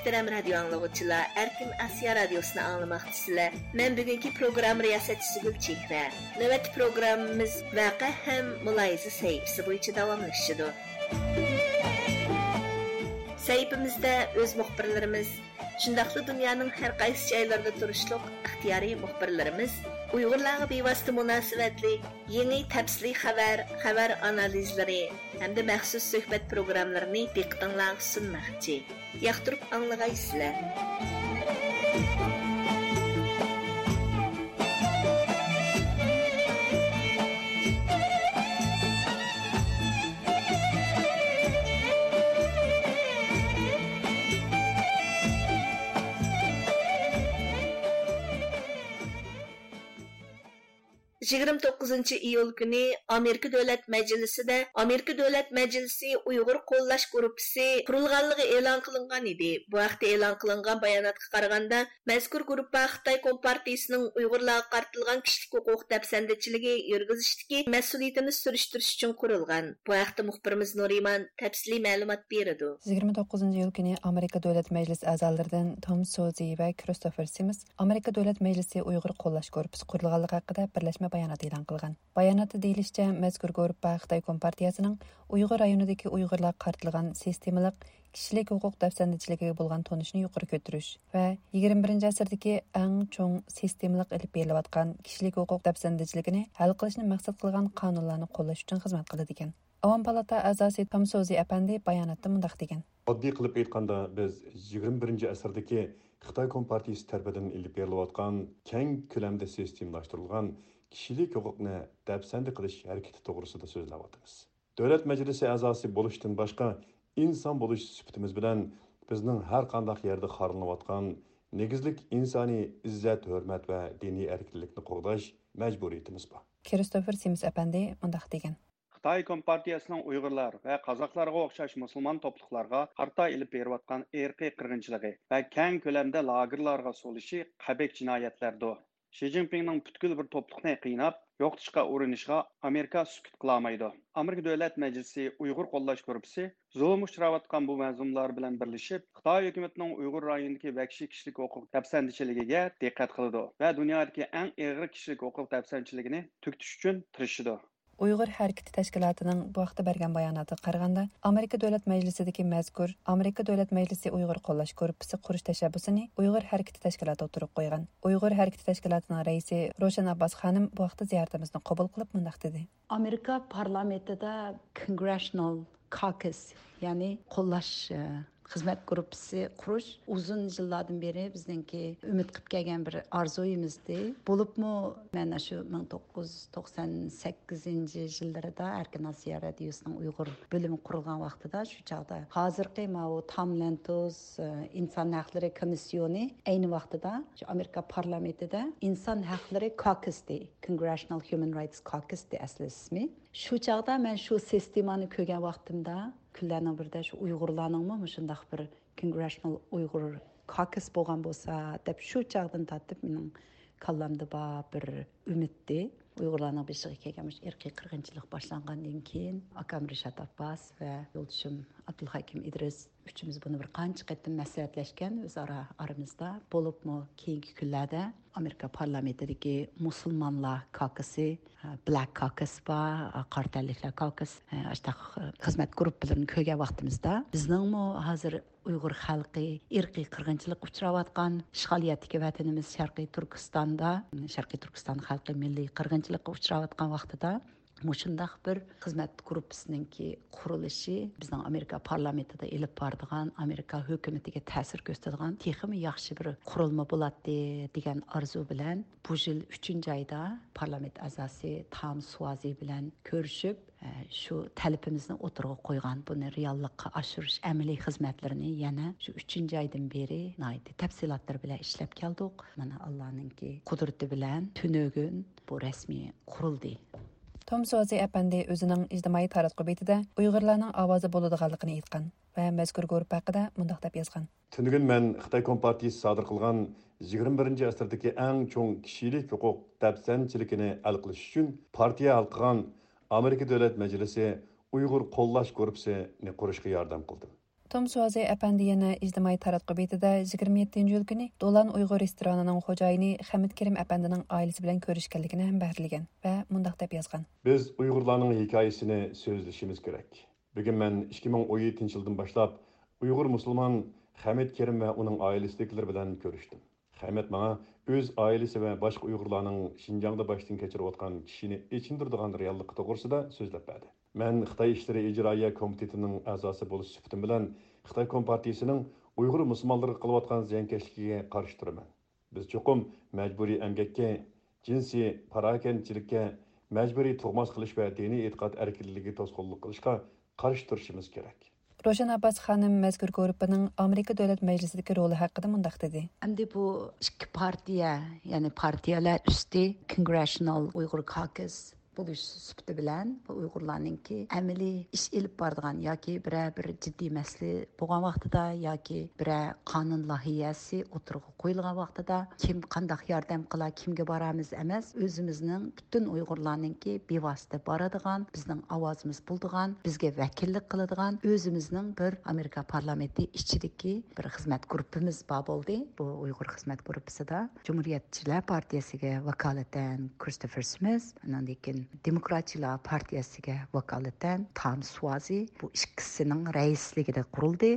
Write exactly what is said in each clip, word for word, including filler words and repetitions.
مۆھتەرەم رادىيو ئاڭلىغۇچىلار، ئەركىن ئاسىيا رادىيوسىنى ئاڭلىماقچىسىلەر. مەن بۈگۈنكى پروگرامما رىياسەتچىسى گۈلچېھرە. نۆۋەتتە پروگراممىمىز ۋەقە ھەم مۇلاھىزە سەھىپىسى بويىچە داۋاملىشىدۇ. سەھىپىمىزدە ئۆز مۇخبىرلىرىمىز، شۇنداقلا دۇنيانىڭ ھەر قايسى جايلىرىدا تۇرۇشلۇق ئىختىيارىي مۇخبىرلىرىمىز ئۇيغۇرلارغا بىۋاسىتە مۇناسىۋەتلىك يېڭى تەپسىلىي خەۋەر، خەۋەر ئانالىزلىرى ھەمدە مەخسۇس سۆھبەت پروگراملىرىنى دىققىتىڭلارغا سۇنماقچى. ياقتۇرۇپ ئاڭلىغايسىلەر. يىگىرمە توققۇزىنچى ئىيۇل كۈنى ئامېرىكا دۆلەت مەجلىسىدە ئامېرىكا دۆلەت مەجلىسى ئۇيغۇر قوللاش گۇرۇپپىسى قۇرۇلغانلىقى ئېلان قىلىنغان ئىدى. بۇ ھەقتە ئېلان قىلىنغان باياناتقا قارىغاندا، مەزكۇر گۇرۇپپا خىتاي كومپارتىيىسىنىڭ ئۇيغۇرلارغا قارىتىلغان كىشىلىك ھوقۇق دەپسەندىچىلىكى يۈرگۈزۈشتىكى مەسئۇلىيىتىنى سۈرۈشتۈرۈش ئۈچۈن قۇرۇلغان. بۇ ھەقتە مۇخبىرىمىز نۇرىمان تەپسىلىي مەلۇمات بېرىدۇ. يىگىرمە توققۇزىنچى ئىيۇل كۈنى ئامېرىكا دۆلەت مەجلىسى ئەزالىرىدىن توم سوزى ۋە كىرىستوفېر سىمس ئامېرىكا دۆلەت مەجلىسى ئۇيغۇر قوللاش گۇرۇپپىسى قۇرۇلغانلىقى ھەققىدە بىرلەشمە بايانات ئېلان قىلغان. باياناتتا دېيىلىشىچە، مەزكۇر گۇرۇپپا خىتاي كومپارتىيەسىنىڭ ئۇيغۇر رايونىدىكى ئۇيغۇرلارغا قارىتىلغان سىستېمىلىق كىشىلىك ھوقۇق دەپسەندىچىلىكىگە بولغان تونۇشنى يۇقىرى كۆتۈرۈش ۋە يىگىرمە بىرىنچى ئەسىردىكى ئەڭ چوڭ سىستېمىلىق ئېلىپ بېرىلىۋاتقان كىشىلىك ھوقۇق دەپسەندىچىلىكىنى ھەل قىلىشنى مەقسەت قىلغان قانۇنلارنى قوللاش ئۈچۈن خىزمەت قىلىدىكەن. ئاۋام پالاتا ئەزاسى توم سوزى ئەپەندى باياناتتا مۇنداق دېگەن. ئاددىي قىلىپ ئېيتقاندا، بىز يىگىرمە بىرىنچى ئەسىردىكى خىتاي كومپارتىيىسى تەرىپىدىن ئېلىپ بېرىلىۋاتقان كەڭ كۆلەمدە سىستېمىلاشتۇرۇلغان كىشىلىك ھوقۇقنى دەپسەندە قىلىش ھەرىكىتى توغرىسىدا سۆزلەۋاتىمىز. دۆلەت مەجلىسى ئەزاسى بولۇشتىن باشقا، ئىنسان بولۇش سۈپىتىمىز بىلەن بىزنىڭ ھەر قانداق يەردە خارلىنىۋاتقان نېگىزلىك ئىنسانىي ئىززەت، ھۆرمەت ۋە دىنىي ئەركىنلىكنى قوغداش مەجبۇرىيىتىمىز بار. كىرىستوفېر سىمس ئەپەندى مۇنداق دېگەن. خىتاي كومپارتىيەسىنىڭ ئۇيغۇرلار ۋە قازاقلارغا ئوخشاش مۇسۇلمان توپلۇقلارغا قارىتا ئېلىپ بېرىۋاتقان ئىرقىي قىرغىنچىلىقى ۋە كەڭ كۆلەمدە لاگېرلارغا سولىشى قەبىھ جىنايەتلەردۇر. شى جىنپىڭنىڭ پۈتكۈل بىر توپلۇقنى قىيناپ يوقىتىشقا ئۇرۇنۇشىغا ئامېرىكا سۈكۈت قىلالمايدۇ. ئامېرىكا دۆلەت مەجلىسى ئۇيغۇر قوللاش گۇرۇپپىسى زۇلۇم ئۇچراۋاتقان بۇ مەزلۇملار بىلەن بىرلىشىپ، خىتاي ھۆكۈمىتىنىڭ ئۇيغۇر رايونىدىكى ۋەھشىي كىشىلىك ھوقۇق دەپسەندىچىلىكىگە دىققەت قىلىدۇ ۋە دۇنيادىكى ئەڭ ئېغىر كىشىلىك ھوقۇق دەپسەندىچىلىكىنى تۈگىتىش ئۈچۈن تىرىشىدۇ. ئۇيغۇر ھەرىكىتى تەشكىلاتىنىڭ بۇ ھەقتە بەرگەن باياناتىغا قارىغاندا، ئامېرىكا دۆلەت مەجلىسىدىكى مەزكۇر ئامېرىكا دۆلەت مەجلىسى ئۇيغۇر قوللاش گۇرۇپپىسى قۇرۇش تەشەببۇسىنى ئۇيغۇر ھەرىكىتى تەشكىلاتى ئوتتۇرىغا قويغان. ئۇيغۇر ھەرىكىتى تەشكىلاتىنىڭ رەئىسى روشەن ئابباس خانىم بۇ ھەقتە زىيارىتىمىزنى قوبۇل قىلىپ مۇنداق دېدى. ئامېرىكا پارلامېنتىدا كونگرېشنال كاكۇس، يەنى قوللاش، ئە، خىزمەت گۇرۇپپىسى قۇرۇش ئۇزۇن يىللاردىن بېرى بىزنىڭكى ئۈمىد قىلىپ كەلگەن بىر ئارزۇيىمىزدى. بولۇپمۇ مەن شۇ مىڭ توققۇز يۈز توقسان سەككىزىنچى يىللىرىدا ئەركىن ئاسىيا رادىيوسىنىڭ ئۇيغۇر بۆلۈمى قۇرۇلغان ۋاقتىدا، شۇ چاغدا ھازىرقى ماۋۇ تام لەنتوز، ئە، ئىنسان ھەقلىرى كومىسسىيونى ئەينى ۋاقتىدا شۇ ئامېرىكا پارلامېنتىدا ئىنسان ھەقلىرى كاكۇسى، كونگرېشنال ھيۇمەن رايتس كاكۇسى ئەسلى ئىسمى. شۇ چاغدا مەن شۇ سىستېمانى كۆرگەن ۋاقتىمدا، كۈنلەرنىڭ بىرىدە شۇ ئۇيغۇرلارنىڭمۇ مۇشۇنداق بىر كونگرېشنال ئۇيغۇر كاكۇس بولغان بولسا دەپ، شۇ چاغدىن تارتىپ مېنىڭ كاللامدا بار بىر ئۈمىدتى. ئۇيغۇرلارنىڭ بېشىغا كەلگەن مۇشۇ ئىرقىي قىرغىنچىلىق باشلانغاندىن كېيىن، ئاكام رىشات ئابباس ۋە يولدىشىم ئابدۇلھەكىم ئىدرىس ئۈچىمىز بۇنى بىر قانچە قېتىم مەسلىھەتلەشكەن ئۆزئارا ئارىمىزدا. بولۇپمۇ كېيىنكى كۈنلەردە ئامېرىكا پارلامېنتىدىكى مۇسۇلمانلار كاكۇسى، بلاك كاكۇس بار، قارا تەنلىكلەر كاكۇس، ئاشتاق خىزمەت گۇرۇپپىلىرىنى كۆرگەن ۋاقتىمىزدا، بىزنىڭمۇ ھازىر ئۇيغۇر خەلقى ئىرقىي قىرغىنچىلىققا ئۇچراۋاتقان، ئىشغالىيەتتىكى ۋەتىنىمىز شەرقىي تۈركىستاندا، شەرقىي تۈركىستان خەلقى مىللىي قىرغىنچىلىققا ئۇچراۋاتقان ۋاقتىدا، مۇشۇنداق بىر خىزمەت گۇرۇپپىسىنىڭكى قۇرۇلۇشى بىزنىڭ ئامېرىكا پارلامېنتىدا ئېلىپ بارىدىغان، ئامېرىكا ھۆكۈمىتىگە تەسىر كۆرسىتىدىغان تېخىمۇ ياخشى بىر قۇرۇلما بولاتتى دېگەن ئارزۇ بىلەن بۇ يىل ئۈچىنچى ئايدا پارلامېنت ئەزاسى تام سۇۋازى بىلەن كۆرۈشۈپ، ئە، شۇ تەلىپىمىزنى ئوتتۇرىغا قويغان. بۇنى رېئاللىققا ئاشۇرۇش ئەمەلىي خىزمەتلىرىنى يەنە شۇ ئۈچىنچى ئايدىن بېرى ناھايىتى تەپسىلاتلىرى بىلەن ئىشلەپ كەلدۇق. مانا، ئاللانىڭكى قۇدرىتى بىلەن تۈنۈگۈن بۇ رەسمىي قۇرۇلدى. توم سوزى ئەپەندى ئۆزىنىڭ ئىجتىمائىي تاراتقۇ بېتىدە ئۇيغۇرلارنىڭ ئاۋازى بولىدىغانلىقىنى ئېيتقان ۋە مەزكۇر گۇرۇپپا ھەققىدە مۇنداق دەپ يازغان. تۈنۈگۈن مەن خىتاي كومپارتىيىسى سادىر قىلغان يىگىرمە بىرىنچى ئەسىردىكى ئەڭ چوڭ كىشىلىك ھوقۇق دەپسەندىچىلىكىنى ھەل قىلىش ئۈچۈن پارتىيە ھەل قىلغان ئامېرىكا دۆلەت مەجلىسى ئۇيغۇر قوللاش گۇرۇپپىسىنى قۇرۇشقا ياردەم قىلدىم. توم سۇۋازى ئەپەندى يەنە ئىجتىمائىي تاراتقۇ بېتىدە يىگىرمە يەتتىنچى ئىيۇل كۈنى دولان ئۇيغۇر رېستورانىنىڭ خوجايىنى خەمىت كېرىم ئەپەندىنىڭ ئائىلىسى بىلەن كۆرۈشكەنلىكىنى ھەم بەھرىلىگەن ۋە مۇنداق دەپ يازغان. بىز ئۇيغۇرلارنىڭ ھېكايىسىنى سۆزلىشىمىز كېرەك. بۈگۈن مەن ئىككى مىڭ ئون يەتتىنچى يىلدىن باشلاپ ئۇيغۇر مۇسۇلمان خەمىت كېرىم ۋە ئۇنىڭ ئائىلىسىدىكىلەر بىلەن كۆرۈشتۈم. خەمەت ماڭا ئۆز ئائىلىسى ۋە باشقا ئۇيغۇرلارنىڭ شىنجاڭدا باشتىن كەچۈرۈۋاتقان چىشىنى ئېچىندۇرىدىغان رېئاللىقى توغرىسىدا سۆزلەپ بەردى. مەن خىتاي ئىشلىرى ئىجرائىيە كومىتېتىنىڭ ئەزاسى بولۇش سۈپىتىم بىلەن خىتاي كومپارتىيىسىنىڭ ئۇيغۇر مۇسۇلمانلىرىغا قىلىۋاتقان زىيانكەشلىكىگە قارشى تۇرىمەن. بىز چوقۇم مەجبۇرىي ئەمگەككە، جىنسىي پاراكەندىچىلىككە، مەجبۇرىي تۇغماس قىلىش ۋە دىنىي ئېتىقاد ئەركىنلىكىگە توسقۇنلۇق قىلىشقا قارشى تۇرۇشىمىز كېرەك. روشەن ئابباس خانىم مەزكۇر گۇرۇپپىنىڭ ئامېرىكا دۆلەت مەجلىسىدىكى رولى ھەققىدە مۇنداق دېدى. ئەمدى بۇ ئىككى پارتىيە، يەنى پارتىيەلەر ئۈستى، كونگرېشنال ئۇيغۇر كاكۇس بولۇش سۈپىتى بىلەن، بۇ ئۇيغۇرلارنىڭكى ئەمەلىي ئىش ئېلىپ بارىدىغان ياكى بىرەر بىر جىددىي مەسىلە بولغان ۋاقتىدا ياكى بىرەر قانۇن لايىھەسى ئوتتۇرىغا قويۇلغان ۋاقتىدا، كىم قانداق ياردەم قىلا، كىمگە بارامىز ئەمەس، ئۆزىمىزنىڭ پۈتۈن ئۇيغۇرلارنىڭكى بىۋاسىتە بارىدىغان، بىزنىڭ ئاۋازىمىز بولىدىغان، بىزگە ۋەكىللىك قىلىدىغان ئۆزىمىزنىڭ بىر ئامېرىكا پارلامېنتى ئىچىدىكى بىر خىزمەت گۇرۇپپىمىز بار بولدى. بۇ ئۇيغۇر خىزمەت گۇرۇپپىسىدا جۇمھۇرىيەتچىلەر پارتىيەسىگە ۋاكالىتەن كرىستوفېر سمىت، ئاندىن كېيىن دېموكراتچىلار پارتىيەسىگە ۋاكالىتەن تام سۇۋازى، بۇ ئىككىسىنىڭ رەئىسلىكىدە قۇرۇلدى.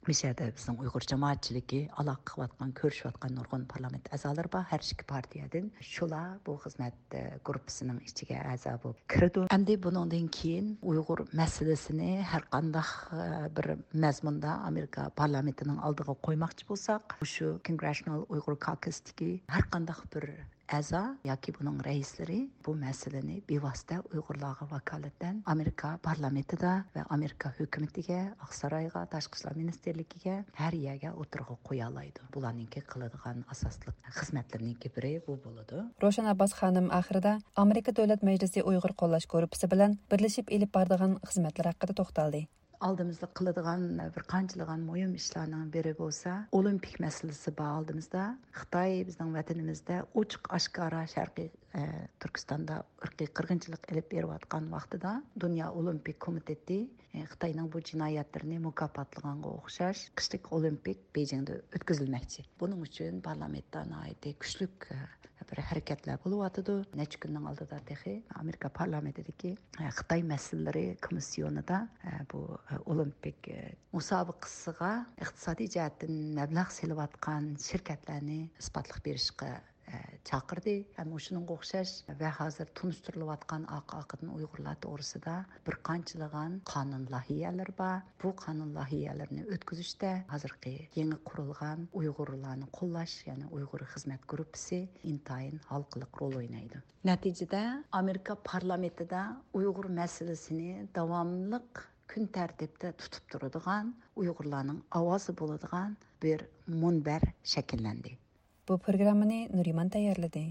مۇشۇ يەردە بىزنىڭ ئۇيغۇر جامائەتچىلىكى ئالاقە قىلىۋاتقان، كۆرۈشۈۋاتقان نۇرغۇن پارلامېنت ئەزالىرى بار، ھەر ئىككى پارتىيەدىن. شۇلار بۇ خىزمەت، ئە، گۇرۇپپىسىنىڭ ئىچىگە ئەزا بولۇپ كىرىدۇ. ئەمدى بۇنىڭدىن كېيىن ئۇيغۇر مەسىلىسىنى ھەر قانداق، ئە، بىر مەزمۇندا ئامېرىكا پارلامېنتىنىڭ ئالدىغا قويماقچى بولساق، مۇشۇ كونگرېشنال ئۇيغۇر كاكۇستىكى ھەر قانداق بىر ئەزا ياكى بۇنىڭ رەئىسلىرى بۇ مەسىلىنى بىۋاسىتە ئۇيغۇرلارغا ۋاكالىتەن ئامېرىكا پارلامېنتىدا ۋە ئامېرىكا ھۆكۈمىتىگە، ئاقسارايغا، تاشقى ئىشلار مىنىستىرلىكىگە، ھەر يەرگە ئوتتۇرىغا قويالايدۇ. بۇلارنىڭكى قىلىدىغان ئاساسلىق خىزمەتلىرىنىڭكى بىرى بۇ بولىدۇ. روشەن ئابباس خانىم ئاخىرىدا ئامېرىكا دۆلەت مەجلىسى ئۇيغۇر قوللاش گۇرۇپپىسى بىلەن بىرلىشىپ ئېلىپ بارىدىغان خىزمەتلەر ھەققىدە توختالدى. ئالدىمىزدا قىلىدىغان بىر قانچىلىغان مۇھىم ئىشلارنىڭ بىرى بولسا، ئولىمپىك مەسىلىسى بار ئالدىمىزدا. خىتاي بىزنىڭ ۋەتىنىمىزدە ئوچۇق ئاشكارا شەرقىي، ئە، تۈركىستاندا ئىرقىي قىرغىنچىلىق ئېلىپ بېرىۋاتقان ۋاقتىدا، دۇنيا ئولىمپىك كومىتېتى، ئە، خىتاينىڭ بۇ جىنايەتلىرىنى مۇكاپاتلىغانغا ئوخشاش، قىشلىق ئولىمپىك بېيجىڭدا ئۆتكۈزۈلمەكچى. بۇنىڭ ئۈچۈن پارلامېنتتا ناھايىتى كۈچلۈك، ئە، بىر ھەرىكەتلەر بولۇۋاتىدۇ. نەچچە كۈننىڭ ئالدىدا تېخى ئامېرىكا پارلامېنتىدىكى، ئە، خىتاي مەسىلىلىرى كومىسسىيونىدا، ئە، بۇ، ئە، ئولىمپىك، ئە، مۇسابىقىسىغا ئىقتىسادىي جەھەتتىن مەبلەغ سېلىۋاتقان شىركەتلەرنى ئىسپاتلىق بېرىشقا، ئە، چاقىردى. ھەم مۇشۇنىڭغا ئوخشاش ۋە ھازىر تونۇشتۇرۇلۇۋاتقان ئارقا-ئارقىدىن ئۇيغۇرلار توغرىسىدا بىر قانچىلىغان قانۇن لايىھەلىرى بار. بۇ قانۇن لايىھەلىرىنى ئۆتكۈزۈشتە ھازىرقى يېڭى قۇرۇلغان ئۇيغۇرلارنى قوللاش، يەنى ئۇيغۇر خىزمەت گۇرۇپپىسى ئىنتايىن ھالقىلىق رول ئوينايدۇ. نەتىجىدە، ئامېرىكا پارلامېنتىدا ئۇيغۇر مەسىلىسىنى داۋاملىق كۈن تەرتىپتە تۇتۇپ تۇرىدىغان، ئۇيغۇرلارنىڭ ئاۋازى بولىدىغان بىر مۇنبەر شەكىللەندى. بۇ پروگراممىنى نۇرىمان تەييارلىدى.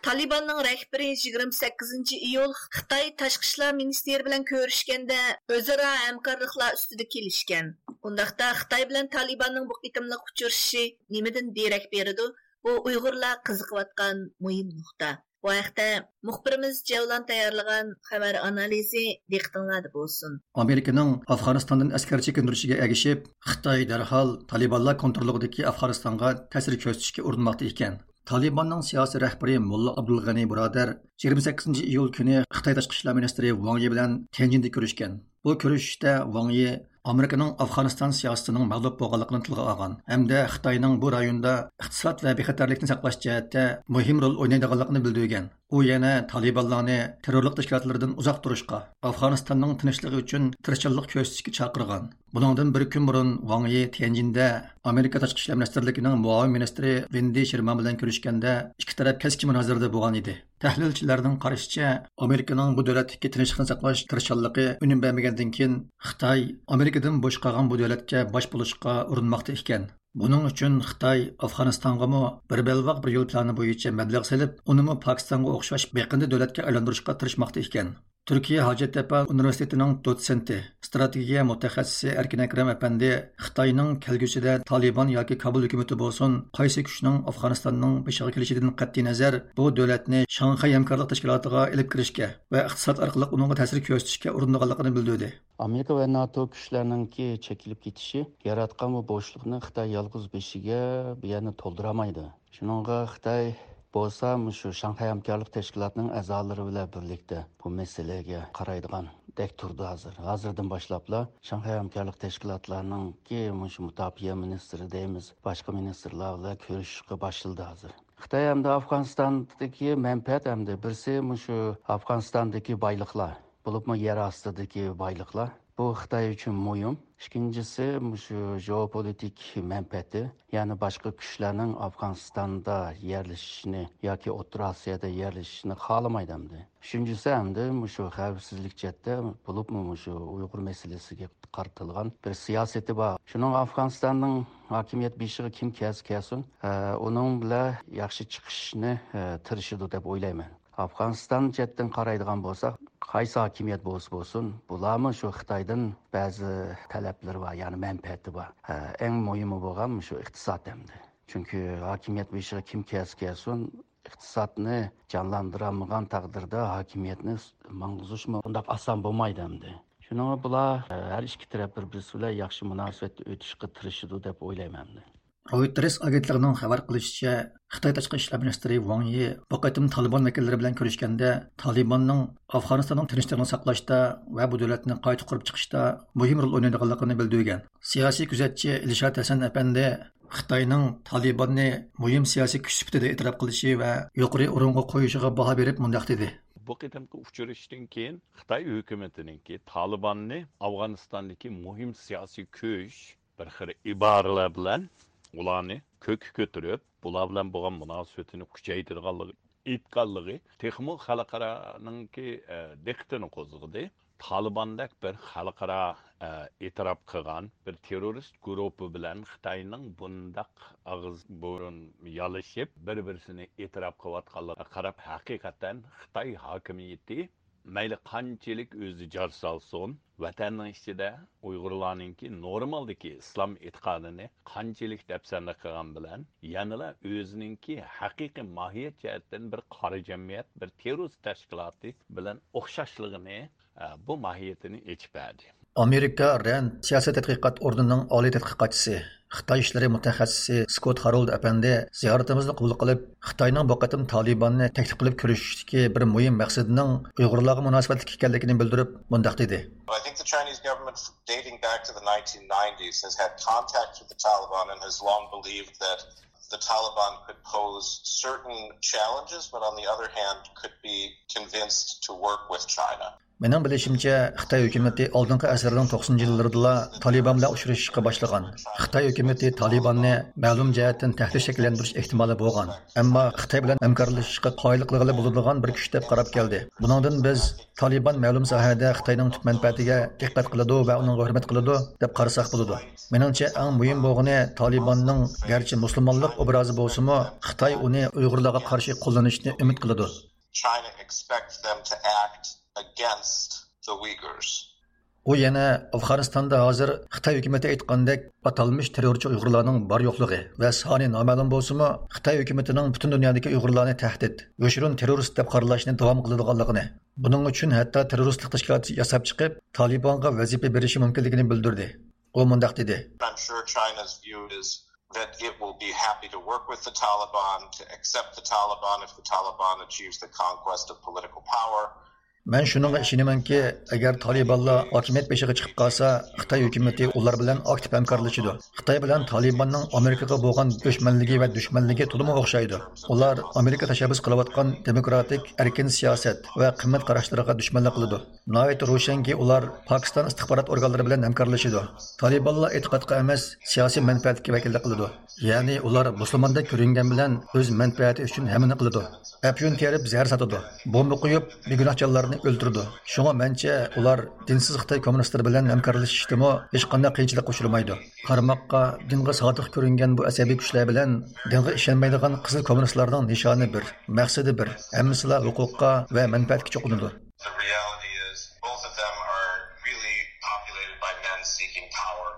تالىباننىڭ رەھبىرى يىگىرمە سەككىزىنچى ئىيۇل خىتاي تاشقى ئىشلار مىنىستىرى بىلەن كۆرۈشكەندە، ئۆزئارا ھەمكارلىقلار ئۈستىدە كېلىشكەن. ئۇنداقتا خىتاي بىلەن تالىباننىڭ بۇ قېتىملىق ئۇچرىشىشى نېمىدىن دېرەك بېرىدۇ؟ بۇ ئۇيغۇرلار قىزىقىۋاتقان مۇھىم نۇقتا. بۇ ھەقتە مۇخبىرىمىز جەۋلان تەييارلىغان خەۋەر ئانالىزى دىققىتىڭلاردا بولسۇن. ئامېرىكىنىڭ ئافغانىستاندىن ئەسكەر چېكىندۈرۈشىگە ئەگىشىپ، خىتاي دەرھال تالىبانلار كونتروللۇقىدىكى ئافغانىستانغا تەسىر كۆرسىتىشكە ئۇرۇنماقتا ئىكەن. تالىباننىڭ سىياسىي رەھبىرى موللا ئابدۇلغەنى بۇرادەر يىگىرمە سەككىزىنچى ئىيۇل كۈنى خىتاي تاشقى ئىشلار مىنىستىرى ۋاڭ يى بىلەن تيەنجىندە كۆرۈشكەن. بۇ كۆرۈشۈشتە ۋاڭ يى ئامېرىكىنىڭ ئافغانىستان سىياسىتىنىڭ مەغلۇپ بولغانلىقىنى تىلغا ئالغان ھەمدە خىتاينىڭ بۇ رايوندا ئىقتىساد ۋە بىخەتەرلىكنى ساقلاش جەھەتتە مۇھىم رول ئوينايدىغانلىقىنى بىلدۈرگەن. ئۇ يەنە تالىبانلارنى تېررورلۇق تەشكىلاتلىرىدىن ئۇزاق تۇرۇشقا، ئافغانىستاننىڭ تىنچلىقى ئۈچۈن تىرىشچانلىق كۆرسىتىشكە چاقىرغان. بۇنىڭدىن بىر كۈن بۇرۇن ۋاڭ يى تيەنجىندە ئامېرىكا تاشقى ئىشلار مىنىستىرلىكىنىڭ مۇئاۋىن مىنىستىرى ۋېندى شېرمان بىلەن كۆرۈشكەندە، ئىككى تەرەپ كەسكىن مۇنازىرىدە بولغان ئىدى. تەھلىلچىلەرنىڭ قارىشىچە، ئامېرىكىنىڭ بۇ دۆلەتتىكى تىنچلىقنى ساقلاش تىرىشچانلىقى ئۈنۈم بەرمىگەندىن كېيىن، خىتاي ئامېرىكىدىن بوش قالغان بۇ دۆلەتكە باش بولۇشقا ئۇرۇنماقتا ئىكەن. بۇنىڭ ئۈچۈن خىتاي ئافغانىستانغىمۇ بىر بەلباغ بىر يول پىلانى بويىچە مەبلەغ سېلىپ، ئۇنىمۇ پاكىستانغا ئوخشاش بېقىندى دۆلەتكە ئايلاندۇرۇشقا تىرىشماقتا ئىكەن. تۈركىيە ھاجەتتەپە ئۇنىۋېرسىتېتىنىڭ دوتسېنتى، ئىستراتېگىيە مۇتەخەسسىسى ئەركىن ئەكرەم ئەپەندى خىتاينىڭ كەلگۈسىدە تالىبان ياكى كابۇل ھۆكۈمىتى بولسۇن، قايسى كۈچنىڭ ئافغانىستاننىڭ بېشىغا كېلىشىدىن قەتئىينەزەر، بۇ دۆلەتنى شاڭخەي ھەمكارلىق تەشكىلاتىغا ئېلىپ كىرىشكە ۋە ئىقتىساد ئارقىلىق ئۇنىڭغا تەسىر كۆرسىتىشكە ئۇرۇنىدىغانلىقىنى بىلدۈردى. ئامېرىكا ۋە ناتو كۈچلەرنىڭكى چېكىلىپ كېتىشى ياراتقان بۇ بوشلۇقنى خىتاي يالغۇز بېشىغا بۇ يەرنى تولدۇرالمايدۇ. شۇنىڭغا خىتاي بولسا مۇشۇ شاڭخەي ھەمكارلىق تەشكىلاتىنىڭ ئەزالىرى بىلەن بىرلىكتە بۇ مەسىلىگە قارايدىغاندەك تۇرىدۇ ھازىر. ھازىردىن باشلاپلا شاڭخەي ھەمكارلىق تەشكىلاتلارنىڭكى مۇشۇ مۇداپىئە مىنىستىرى دەيمىز، باشقا مىنىستىرلار بىلەن كۆرۈشۈشكە باشلىدى ھازىر. خىتاي ھەمدە ئافغانىستاندىكى مەنپەئەت ھەمدە بىرسى مۇشۇ ئافغانىستاندىكى بايلىقلار، بولۇپمۇ يەر ئاستىدىكى بايلىقلار. بۇ خىتاي ئۈچۈن مۇھىم. ئىككىنچىسى، مۇشۇ ژېئوپولىتىك مەنپەئەتى، يەنى باشقا كۈچلەرنىڭ ئافغانىستاندا يەرلىشىشىنى ياكى ئوتتۇرا ئاسىيادا يەرلىشىشىنى خالىمايدۇ ئەمدى. ئۈچىنچىسى، ئەمدى مۇشۇ خەۋپسىزلىك جەھەتتە، بولۇپمۇ مۇشۇ ئۇيغۇر مەسىلىسىگە قارىتىلغان بىر سىياسىتى بار. شۇنىڭ ئافغانىستاننىڭ ھاكىمىيەت بېشىغا كىم كەلسە كەلسۇن، ئە، ئۇنىڭ بىلەن ياخشى چىقىشنى، ئە، تىرىشىدۇ دەپ ئويلايمەن. ئافغانىستان جەھەتتىن قارايدىغان بولساق، قايسى ھاكىمىيەت بولسا بولسۇن، بۇلارمۇ شۇ خىتايدىن بەزى تەلەپلىرى بار، يەنى مەنپەئەتى بار. ھە، ئەڭ مۇھىمى بولغان شۇ ئىقتىساد ئەمدى. چۈنكى ھاكىمىيەت بېشىغا كىم كەلسە كەلسۇن، ئىقتىسادنى جانلاندۇرالمىغان تەقدىردە ھاكىمىيەتنى ماڭغۇزۇشمۇ ئۇنداق ئاسان بولمايدۇ ئەمدى. شۇنىڭغا بۇلار، ھە، ھەر ئىككى تەرەپ بىر-بىرسى بىلەن ياخشى مۇناسىۋەتتە ئۆتۈشكە تىرىشىدۇ دەپ ئويلايمەن ئەمدى. رويتېرس ئاگېنتلىقىنىڭ خەۋەر قىلىشىچە، خىتاي تاشقى ئىشلار مىنىستىرى ۋاڭ يى بۇ قېتىم تالىبان ۋەكىللىرى بىلەن كۆرۈشكەندە، تالىباننىڭ ئافغانىستاننىڭ تىنچلىقىنى ساقلاشتا ۋە بۇ دۆلەتنى قايتا قۇرۇپ چىقىشتا مۇھىم رول ئوينايدىغانلىقىنى بىلدۈرگەن. سىياسىي كۆزەتچى ئىلشات ھەسەن ئەپەندى خىتاينىڭ تالىباننى مۇھىم سىياسىي كۈچ سۈپىتىدە ئېتىراپ قىلىشى ۋە يۇقىرى ئورۇنغا قويۇشىغا باھا بېرىپ مۇنداق دېدى. بۇ قېتىمقى ئۇچرىشىشتىن كېيىن خىتاي ھۆكۈمىتىنىڭكى تالىباننى ئافغانىستاندىكى مۇھىم سىياسىي كۈچ، بىر خىل ئىبارىلەر بىلەن ئۇلارنى كۆككە كۆتۈرۈپ، بۇلار بىلەن بولغان مۇناسىۋىتىنى كۈچەيتىدىغانلىقى ئېيتقانلىقى تېخىمۇ خەلقئارانىڭكى، ئە، دىققىتىنى قوزغىدى. تالىباندەك بىر خەلقئارا، ئە، ئېتىراپ قىلغان بىر تېررورىست گۇرۇپپا بىلەن خىتاينىڭ بۇنداق ئاغزى بۇرۇن يالىشىپ، بىر-بىرسىنى ئېتىراپ قىلىۋاتقانلىقىغا قاراپ، ھەقىقەتەن خىتاي ھاكىمىيىتى مەيلى قانچىلىك ئۆزى جار سالسۇن، ۋەتەننىڭ ئىچىدە ئۇيغۇرلارنىڭكى نورمالدىكى ئىسلام ئېتىقادىنى قانچىلىك دەپسەندە قىلغان بىلەن، يەنىلا ئۆزىنىڭكى ھەقىقىي ماھىيەت جەھەتتىن بىر قارا جەمئىيەت، بىر تېررورىست تەشكىلاتى بىلەن ئوخشاشلىقىنى، ئە، بۇ ماھىيىتىنى ئېچىپ بەردى. ئامېرىكا رەند سىياسىي تەتقىقات ئورنىنىڭ ئالىي تەتقىقاتچىسى، خىتاي ئىشلىرى مۇتەخەسسىسى سكوت خارولد ئەپەندى زىيارىتىمىزنى قوبۇل قىلىپ، خىتاينىڭ بۇ قېتىم تالىباننى تەكلىپ قىلىپ كۆرۈشۈشتىكى بىر مۇھىم مەقسىتىنىڭ ئۇيغۇرلارغا مۇناسىۋەتلىك ئىكەنلىكىنى بىلدۈرۈپ، مۇنداق دېدى. I think the Chinese government, dating back to the nineteen nineties, has had contact with the Taliban and has long believed that the Taliban could pose certain challenges, but on the other hand, could be convinced to work with China. مېنىڭ بىلىشىمچە، خىتاي ھۆكۈمىتى ئالدىنقى ئەسىرنىڭ توقسىنىنچى يىللىرىدىلا تالىبان بىلەن ئۇچرىشىشقا باشلىغان. خىتاي ھۆكۈمىتى تالىباننى مەلۇم جەھەتتىن تەھدىت شەكىللەندۈرۈش ئېھتىمالى بولغان، ئەمما خىتاي بىلەن ھەمكارلىشىشقا قايىل قىلغىلى بولىدىغان بىر كۈچ دەپ قاراپ كەلدى. بۇنىڭدىن بىز تالىبان مەلۇم ساھەدە خىتاينىڭ تۈپ مەنپەئەتىگە دىققەت قىلىدۇ ۋە ئۇنىڭغا ھۆرمەت قىلىدۇ دەپ قارىساق بولىدۇ. مېنىڭچە، ئەڭ مۇھىم بولغىنى تالىباننىڭ گەرچە مۇسۇلمانلىق ئوبرازى بولسىمۇ، خىتاي ئۇنى ئۇيغۇرلارغا قارشى قوللىنىشنى ئۈمىد قىلىدۇ. China expects them to act against the Uyghurs. ئۇ يەنە ئافغانىستاندا ھازىر خىتاي ھۆكۈمىتى ئېيتقاندەك ئاتالمىش تېررورچى ئۇيغۇرلارنىڭ بار يوقلۇقى ۋە سانى نامەلۇم بولسىمۇ، خىتاي ھۆكۈمىتىنىڭ پۈتۈن دۇنيادىكى ئۇيغۇرلارنى تەھدىت، يوشۇرۇن تېررورىست دەپ قارىلاشنى داۋام قىلىدىغانلىقىنى، بۇنىڭ ئۈچۈن ھەتتا تېررورىستلىق تەشكىلات ياساپ چىقىپ، تالىبانغا ۋەزىپە بېرىشى مۇمكىنلىكىنى بىلدۈردى. ئۇ مۇنداق دېدى. I'm sure China's view is that it will be happy to work with the Taliban, to accept the Taliban if the Taliban achieves the conquest of political power. مەن شۇنىڭغا ئىشىنىمەنكى، ئەگەر تالىبانلار ھاكىمىيەت بېشىغا چىقىپ قالسا، خىتاي ھۆكۈمىتى ئۇلار بىلەن ئاكتىپ ھەمكارلىشىدۇ. خىتاي بىلەن تالىباننىڭ ئامېرىكىغا بولغان ئۆچمەنلىكى ۋە دۈشمەنلىكى تولىمۇ ئوخشايدۇ. ئۇلار ئامېرىكا تەشەببۇس قىلىۋاتقان دېموكراتىك، ئەركىن سىياسەت ۋە قىممەت قاراشلىرىغا دۈشمەنلىك قىلىدۇ. ناھايىتى روشەنكى، ئۇلار پاكىستان ئىستىخبارات ئورگانلىرى بىلەن ھەمكارلىشىدۇ. تالىبانلار ئېتىقادقا ئەمەس، سىياسىي مەنپەئەتكە ۋەكىللىك قىلىدۇ. يەنى ئۇلار مۇسۇلماندەك كۆرۈنگەن بىلەن ئۆز مەنپەئەتى ئۈچۈن ھەممىنى قىلىدۇ. ئەپيۈن تېرىپ زەھەر ساتىدۇ. بومبا قويۇپ بىگۇناھ جانلارنى ئۆلتۈرىدۇ. شۇڭا مەنچە ئۇلار دىنسىز خىتاي كوممۇنىستلىرى بىلەن ھەمكارلىشىشتىمۇ ھېچقانداق قىيىنچىلىققا ئۇچرىمايدۇ. قارىماققا دىنغا سادىق كۆرۈنگەن بۇ ئەسەبىي كۈچلەر بىلەن دىنغا ئىشەنمەيدىغان قىزىل كوممۇنىستلارنىڭ نىشانى بىر، مەقسىتى بىر، ھەممىسىلا ھوقۇققا ۋە مەنپەئەتكە چوقۇنىدۇ. The reality and seeking power.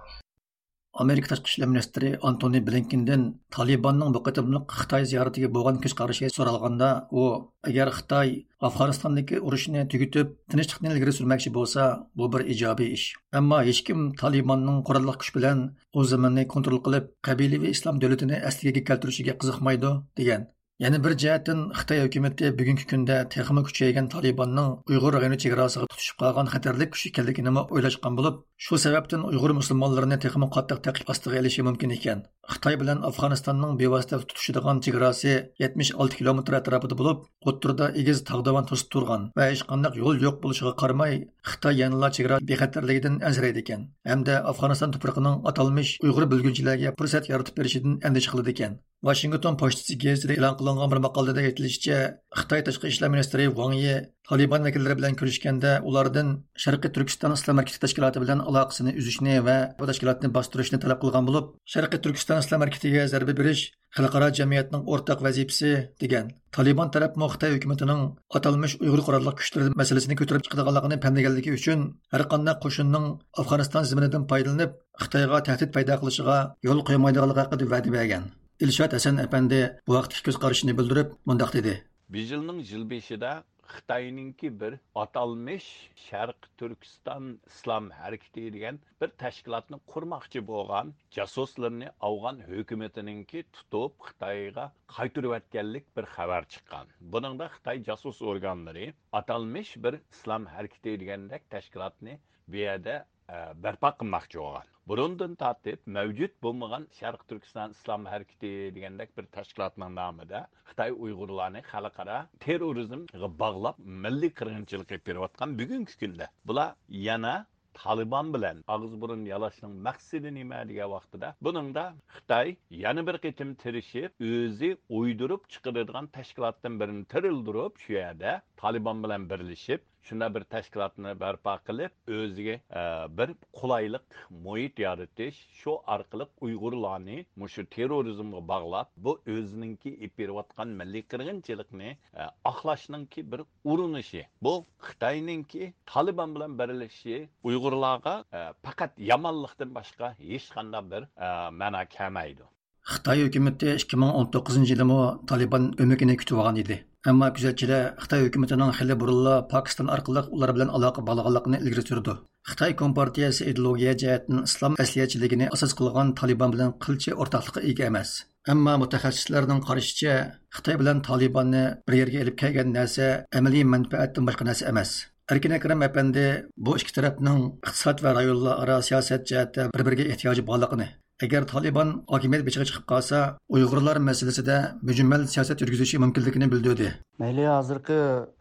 ئامېرىكا تاشقى ئىشلار مىنىستىرى ئانتونى بلىنكېندىن تالىباننىڭ بۇ قېتىملىق خىتاي زىيارىتىگە بولغان كۆز قارىشى سورالغاندا، ئۇ، ئەگەر خىتاي ئافغانىستاندىكى ئۇرۇشنى تۈگىتىپ، تىنچلىقنى ئىلگىرى سۈرمەكچى بولسا، بۇ بىر ئىجابىي ئىش. ئەمما ھېچكىم تالىباننىڭ قوراللىق كۈچ بىلەن ئۇ زېمىننى كونترول قىلىپ، قەبىلىۋى ئىسلام دۆلىتىنى ئەسلىگىگە كەلتۈرۈشىگە قىزىقمايدۇ، دېگەن. يەنە بىر جەھەتتىن، خىتاي ھۆكۈمىتى بۈگۈنكى كۈندە تېخىمۇ كۈچەيگەن تالىباننىڭ ئۇيغۇر رايونى چېگراسىغا تۇتىشىپ قالغان خەتەرلىك كۈچ ئىكەنلىكىنىمۇ ئويلاشقان بولۇپ، شۇ سەۋەبتىن ئۇيغۇر مۇسۇلمانلىرىنى تېخىمۇ قاتتىق تەقىب ئاستىغا ئېلىشى مۇمكىن ئىكەن. خىتاي بىلەن ئافغانىستاننىڭ بىۋاسىتە تۇتىشىدىغان چېگراسى يەتمىش ئالتە كىلومېتىر ئەتراپىدا بولۇپ، ئوتتۇرىدا ئېگىز تاغ داۋان توسۇپ تۇرغان ۋە ھېچقانداق يول يوق بولۇشىغا قارىماي، خىتاي يەنىلا چېگرا بىخەتەرلىكىدىن ئەنسىرەيدىكەن ھەمدە ئافغانىستان تۇپرىقىنىڭ ئاتالمىش ئۇيغۇر بۆلگۈنچىلەرگە پۇرسەت يارىتىپ بېرىشىدىن ئەندىشە قىلىدىكەن. ۋاشىنگتون پوچتىسى گېزىتىدە ئېلان قىلىنغان بىر ماقالىدە ئېيتىلىشىچە، خىتاي تاشقى ئىشلار مىنىستىرى ۋاڭ يى تالىبان ۋەكىللىرى بىلەن كۆرۈشكەندە، ئۇلاردىن شەرقىي تۈركىستان ئىسلام ھەرىكىتى تەشكىلاتى بىلەن ئالاقىسىنى ئۈزۈشنى ۋە بۇ تەشكىلاتنى باستۇرۇشنى تەلەپ قىلغان بولۇپ، شەرقىي تۈركىستان ئىسلام ھەرىكىتىگە زەربە بېرىش خەلقئارا جەمئىيەتنىڭ ئورتاق ۋەزىپىسى، دېگەن. تالىبان تەرەپمۇ خىتاي ھۆكۈمىتىنىڭ ئاتالمىش ئۇيغۇر قوراللىق كۈچلىرى مەسىلىسىنى كۆتۈرۈپ چىقىدىغانلىقىنى پەملىگەنلىكى ئۈچۈن، ھەرقانداق قوشۇننىڭ ئافغانىستان زېمىنىدىن پايدىلىنىپ، خىتايغا تەھدىت پەيدا قىلىشىغا يول قويمايدىغانلىقى ھەققىدە ۋەدە بەرگەن. ئىلشات ھەسەن ئەپەندى بۇ ھەقتىكى كۆز قارىشىنى بىلدۈرۈپ، مۇنداق دېدى. بۇ يىلنىڭ يىل بېشىدا خىتاينىڭكى بىر ئاتالمىش شەرقىي تۈركىستان ئىسلام ھەرىكىتى دېگەن بىر تەشكىلاتنى قۇرماقچى بولغان جاسۇسلىرىنى ئافغان ھۆكۈمىتىنىڭكى تۇتۇپ، خىتايغا قايتۇرۇۋەتكەنلىك بىر خەۋەر چىققان. بۇنىڭدا خىتاي جاسۇس ئورگانلىرى ئاتالمىش بىر ئىسلام ھەرىكىتى دېگەندەك تەشكىلاتنى بۇ يەردە، ئە، بەرپا قىلماقچى بولغان. بۇرۇندىن تارتىپ مەۋجۇت بولمىغان شەرقىي تۈركىستان ئىسلام ھەرىكىتى دېگەندەك بىر تەشكىلاتنىڭ نامىدا خىتاي ئۇيغۇرلارنى خەلقئارا تېررورىزمغا باغلاپ، مىللىي قىرغىنچىلىق ئېلىپ بېرىۋاتقان بۈگۈنكى كۈندە بۇلار يەنە تالىبان بىلەن ئاغزى بۇرۇن يالاشنىڭ مەقسىتى نېمە دېگەن ۋاقتىدا، بۇنىڭدا خىتاي يەنە بىر قېتىم تىرىشىپ، ئۆزى ئويدۇرۇپ چىقىرىدىغان تەشكىلاتتىن بىرىنى تىرىلدۈرۈپ، شۇ يەردە تالىبان بىلەن بىرلىشىپ، شۇنداق بىر تەشكىلاتنى بەرپا قىلىپ، ئۆزىگە، ئە، بىر قولايلىق مۇھىت يارىتىش، شۇ ئارقىلىق ئۇيغۇرلارنى مۇشۇ تېررورىزمغا باغلاپ، بۇ ئۆزىنىڭكى ئېلىپ بېرىۋاتقان مىللىي قىرغىنچىلىقنى، ئە، ئاقلاشنىڭكى بىر ئۇرۇنۇشى. بۇ خىتاينىڭكى تالىبان بىلەن بىرلىشىشى ئۇيغۇرلارغا، ئە، پەقەت يامانلىقتىن باشقا ھېچقانداق بىر، ئە، مەنا كەلمەيدۇ. خىتاي ھۆكۈمىتى ئىككى مىڭ ئون توققۇزىنچى يىلىمۇ تالىبان ئۆمىكىنى كۈتۈۋالغان ئىدى. ئەمما كۆزەتچىلەر خىتاي ھۆكۈمىتىنىڭ خېلى بۇرۇنلا پاكىستان ئارقىلىق ئۇلار بىلەن ئالاقە باغلىغانلىقىنى ئىلگىرى سۈرىدۇ. خىتاي كومپارتىيەسى ئىدېئولوگىيە جەھەتتىن ئىسلام ئەسلىھەچىلىكىنى ئاساس قىلغان تالىبان بىلەن قىلچە ئورتاقلىققا ئىگە ئەمەس. ئەمما مۇتەخەسسىسلەرنىڭ قارىشىچە، خىتاي بىلەن تالىباننى بىر يەرگە ئېلىپ كەلگەن نەرسە ئەمەلىي مەنپەئەتتىن باشقا نەرسە ئەمەس. ئەركىن ئەكرەم ئەپەندى بۇ ئىككى تەرەپنىڭ ئىقتىساد ۋە رايونلار ئارا سىياسەت جەھەتتە بىر-بىرىگە ئېھتىياجى بارلىقىنى، ئەگەر تالىبان ھاكىمىيەت بېشىغا چىقىپ قالسا، ئۇيغۇرلار مەسىلىسىدە مۈجمەل سىياسەت يۈرگۈزۈشى مۇمكىنلىكىنى بىلدۈردى. مەيلى، ھازىرقى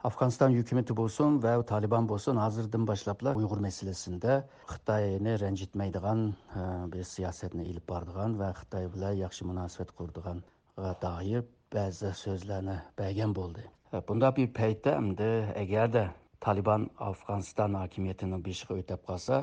ئافغانىستان ھۆكۈمىتى بولسۇن ۋە تالىبان بولسۇن، ھازىردىن باشلاپلا ئۇيغۇر مەسىلىسىدە خىتاينى رەنجىتمەيدىغان، ئە، بىر سىياسەتنى ئېلىپ بارىدىغان ۋە خىتاي بىلەن ياخشى مۇناسىۋەت قۇرىدىغانغا دائىر بەزى سۆزلەرنى بەرگەن بولدى. بۇنداق بىر پەيتتە ئەمدى ئەگەردە تالىبان ئافغانىستان ھاكىمىيىتىنىڭ بېشىغا ئۆتەپ قالسا،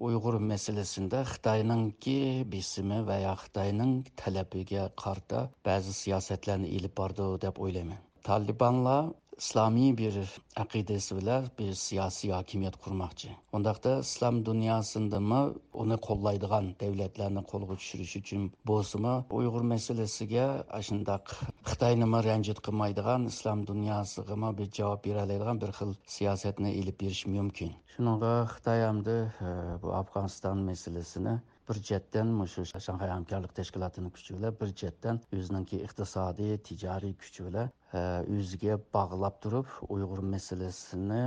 ئۇيغۇر مەسىلىسىندە خىتاينىڭكى بېسىمى ۋە يا خىتاينىڭ تەلىپىگە قارىتا بەزى سىياسەتلەرنى ئېلىپ بارىدۇ دەپ ئويلايمەن. تالىبانلار ئىسلامىي بىر ئەقىدىسى بىلەن بىر سىياسىي ھاكىمىيەت قۇرماقچى. ئۇنداقتا ئىسلام دۇنياسىندىمۇ ئۇنى قوللايدىغان دۆلەتلەرنى قولغا چۈشۈرۈش ئۈچۈن بولسىمۇ، ئۇيغۇر مەسىلىسىگە ئاشۇنداق خىتاينىمۇ رەنجىت قىلمايدىغان، ئىسلام دۇنياسىغىمۇ بىر جاۋاب بېرەلەيدىغان بىر خىل سىياسەتنى ئېلىپ بېرىشى مۇمكىن. شۇنىڭغا خىتاي ئەمدى، ئە، بۇ ئافغانىستان مەسىلىسىنى بىر جەھەتتىن مۇشۇ شاڭخەي ھەمكارلىق تەشكىلاتىنىڭ كۈچى بىلەن، بىر جەھەتتىن ئۆزىنىڭكى ئىقتىسادىي، تىجارىي كۈچى بىلەن، ئە، ئۆزىگە باغلاپ تۇرۇپ، ئۇيغۇر مەسىلىسىنى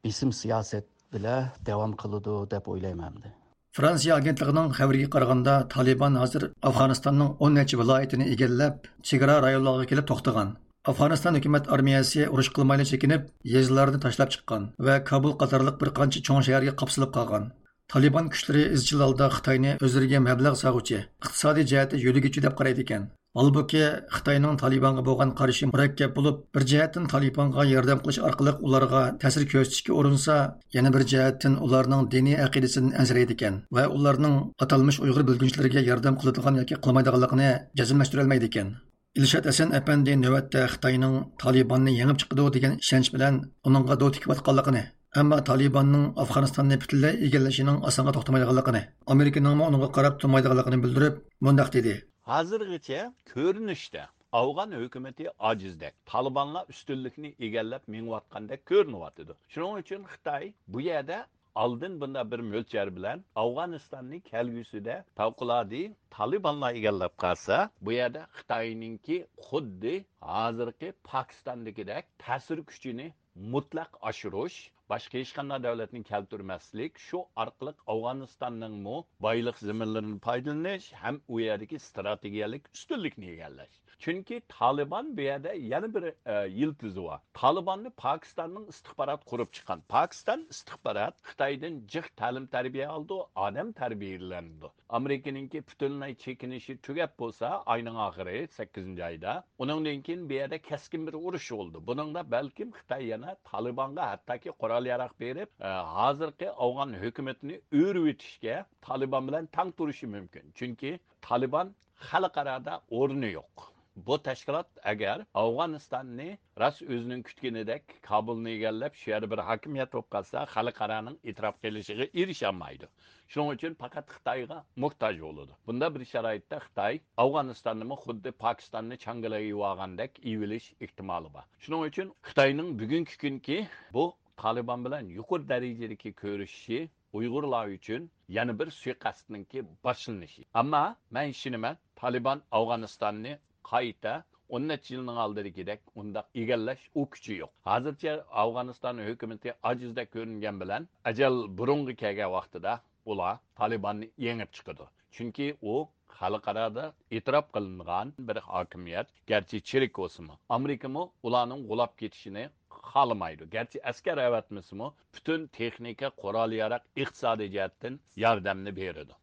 بېسىم سىياسەت بىلەن داۋام قىلىدۇ دەپ ئويلايمەن ئەمدى. فرانسىيە ئاگېنتلىقىنىڭ خەۋىرىگە قارىغاندا، تالىبان ھازىر ئافغانىستاننىڭ ئون نەچچە ۋىلايىتىنى ئىگىلەپ، چېگرا رايونلارغا كېلىپ توختىغان. ئافغانىستان ھۆكۈمەت ئارمىيەسى ئۇرۇش قىلمايلا چېكىنىپ، يېزىلارنى تاشلاپ چىققان ۋە كابۇل قاتارلىق بىر قانچە چوڭ شەھەرگە قاپسىلىپ قالغان. تالىبان كۈچلىرى ئىزچىل ھالدا خىتاينى ئۆزلىرىگە مەبلەغ سالغۇچى، ئىقتىسادىي جەھەتتە يۆلىگۈچى دەپ قارايدىكەن. ھالبۇكى، خىتاينىڭ تالىبانغا بولغان قارىشى مۇرەككەپ بولۇپ، بىر جەھەتتىن تالىبانغا ياردەم قىلىش ئارقىلىق ئۇلارغا تەسىر كۆرسىتىشكە ئۇرۇنسا، يەنە بىر جەھەتتىن ئۇلارنىڭ دىنىي ئەقىدىسىدىن ئەنسىرەيدىكەن ۋە ئۇلارنىڭ ئاتالمىش ئۇيغۇر بۆلگۈنچىلىرىگە ياردەم قىلىدىغان ياكى قىلمايدىغانلىقىنى جەزملەشتۈرەلمەيدىكەن. ئىلشات ھەسەن ئەپەندى نۆۋەتتە خىتاينىڭ تالىباننى يېڭىپ چىقىدۇ دېگەن ئىشەنچ بىلەن ئۇنىڭغا دو تىكىۋاتقانلىقىنى، ئەمما تالىباننىڭ ئافغانىستاننى پۈتۈنلەي ئىگىلىشىنىڭ ئاسانغا توختىمايدىغانلىقىنى، ئامېرىكىنىڭمۇ ئۇنىڭغا قاراپ تۇرمايدىغانلىقىنى بىلدۈرۈپ، مۇنداق دېدى. ھازىرغىچە كۆرۈنۈشتە ئافغان ھۆكۈمىتى ئاجىزدەك، تالىبانلار ئۈستۈنلۈكنى ئىگىلەپ مېڭىۋاتقاندەك كۆرۈنۈۋاتىدۇ. شۇنىڭ ئۈچۈن خىتاي بۇ يەردە ئالدىن بۇنداق بىر مۆلچەر بىلەن ئافغانىستاننى كەلگۈسىدە پەۋقۇلئاددە تالىبانلار ئىگىلەپ قالسا، بۇ يەردە خىتاينىڭكى خۇددى ھازىرقى پاكىستاندىكىدەك تەسىر كۈچىنى مۇتلەق ئاشۇرۇش، باشقا ھېچقانداق دۆلەتنى كەلتۈرمەسلىك، شۇ ئارقىلىق ئافغانىستاننىڭمۇ بايلىق زېمىنلىرىنى پايدىلىنىش ھەم ئۇ يەردىكى ئىستراتېگىيەلىك ئۈستۈنلۈكنى ئىگىلەش. چۈنكى تالىبان بۇ يەردە يەنە بىر، ئە، يىلتىزى بار. تالىباننى پاكىستاننىڭ ئىستىخباراتى قۇرۇپ چىققان. پاكىستان ئىستىخبارات خىتايدىن جىق تەلىم-تەربىيە ئالىدۇ، ئادەم تەربىيەلىنىدۇ. ئامېرىكىنىڭكى پۈتۈنلەي چېكىنىشى تۈگەپ بولسا، ئاينىڭ ئاخىرى، سەككىزىنچى ئايدا، ئۇنىڭدىن كېيىن بۇ يەردە كەسكىن بىر ئۇرۇش بولىدۇ. بۇنىڭدا بەلكىم خىتاي يەنە تالىبانغا ھەتتاكى قورال-ياراغ بېرىپ، ئە، ھازىرقى ئافغان ھۆكۈمىتىنى ئۆرۈۋېتىشكە تالىبان بىلەن تەڭ تۇرۇشى مۇمكىن. چۈنكى تالىبان خەلقئارادا ئورنى يوق. بۇ تەشكىلات ئەگەر ئافغانىستاننى راست ئۆزىنىڭ كۈتكىنىدەك كابۇلنى ئىگىلەپ، شۇ يەردە بىر ھاكىمىيەت بولۇپ قالسا، خەلقئارانىڭ ئېتىراپ قىلىشىغا ئېرىشەلمەيدۇ. شۇنىڭ ئۈچۈن پەقەت خىتايغا موھتاج بولىدۇ. بۇنداق بىر شارائىتتا خىتاي ئافغانىستاننىمۇ خۇددى پاكىستاننى چاڭگىلىغا ئېۋالغاندەك ئېۋىلىش ئېھتىمالى بار. شۇنىڭ ئۈچۈن خىتاينىڭ بۈگۈنكى كۈنكى بۇ تالىبان بىلەن يۇقىرى دەرىجىدىكى كۆرۈشۈشى ئۇيغۇرلار ئۈچۈن يەنە بىر سۇيىقەستنىڭكى باشلىنىشى. ئەمما مەن ئىشىنىمەن، تالىبان ئافغانىستاننى قايتا ئون نەچچە يىلنىڭ ئالدىدىكىدەك ئۇنداق ئىگىلەش ئۇ كۈچى يوق. ھازىرچە ئافغانىستان ھۆكۈمىتى ئاجىزدەك كۆرۈنگەن بىلەن، ئەجەل بۇرۇنغا كەلگەن ۋاقتىدا ئۇلار تالىباننى يېڭىپ چىقىدۇ. چۈنكى ئۇ خەلقئارادا ئېتىراپ قىلىنغان بىر ھاكىمىيەت، گەرچە چىرىك بولسىمۇ. ئامېرىكىمۇ ئۇلارنىڭ غۇلاپ كېتىشىنى خالىمايدۇ. گەرچە ئەسكەر ئەۋەتمىسىمۇ، پۈتۈن تېخنىكا، قورال-ياراغ، ئىقتىسادىي جەھەتتىن ياردەمنى بېرىدۇ.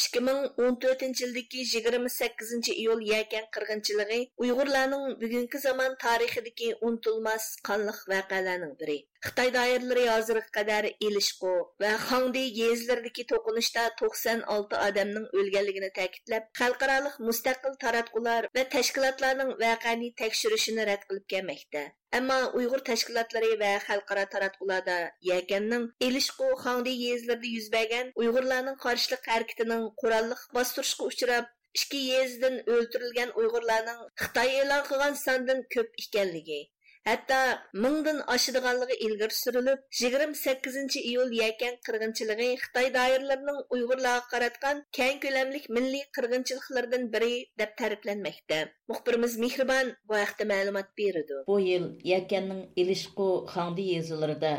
ئىككى مىڭ ئون تۆتىنچى يىلدىكى يىگىرمە سەككىزىنچى ئىيۇل يەكەن قىرغىنچىلىقى ئۇيغۇرلارنىڭ بۈگۈنكى زامان تارىخىدىكى ئۇنتۇلماس قانلىق ۋەقەلەرنىڭ بىرى. خىتاي دائىرىلىرى ھازىرغا قەدەر ئېلىشقۇ ۋە خاڭدۇي يېزىلىرىدىكى توقۇنۇشتا توقسان ئالتە ئادەمنىڭ ئۆلگەنلىكىنى تەكىتلەپ، خەلقئارالىق مۇستەقىل تاراتقۇلار ۋە تەشكىلاتلارنىڭ ۋەقەنى تەكشۈرۈشىنى رەت قىلىپ كەلمەكتە. ئەمما ئۇيغۇر تەشكىلاتلىرى ۋە خەلقئارا تاراتقۇلاردا يەكەننىڭ ئېلىشقۇ، خاڭدۇي يېزىلىرىدا يۈز بەرگەن ئۇيغۇرلارنىڭ قارشىلىق ھەرىكىتىنىڭ قوراللىق باستۇرۇشقا ئۇچراپ، ئىككى يېزىدىن ئۆلتۈرۈلگەن ئۇيغۇرلارنىڭ خىتاي ئېلان قىلغان ساندىن كۆپ ئىكەنلىكى، ھەتتا مىڭدىن ئاشىدىغانلىقى ئىلگىرى سۈرۈلۈپ، يىگىرمە سەككىزىنچى ئىيۇل يەكەن قىرغىنچىلىقى خىتاي دائىرىلىرىنىڭ ئۇيغۇرلارغا قاراتقان كەڭ كۆلەملىك مىللىي قىرغىنچىلىقلىرىدىن بىرى دەپ تەرىپلەنمەكتە. مۇخبىرىمىز مېھرىبان بۇ ھەقتە مەلۇمات بېرىدۇ. بۇ يىل يەكەننىڭ ئېلىشقۇ، خاڭدۇي يېزىلىرىدا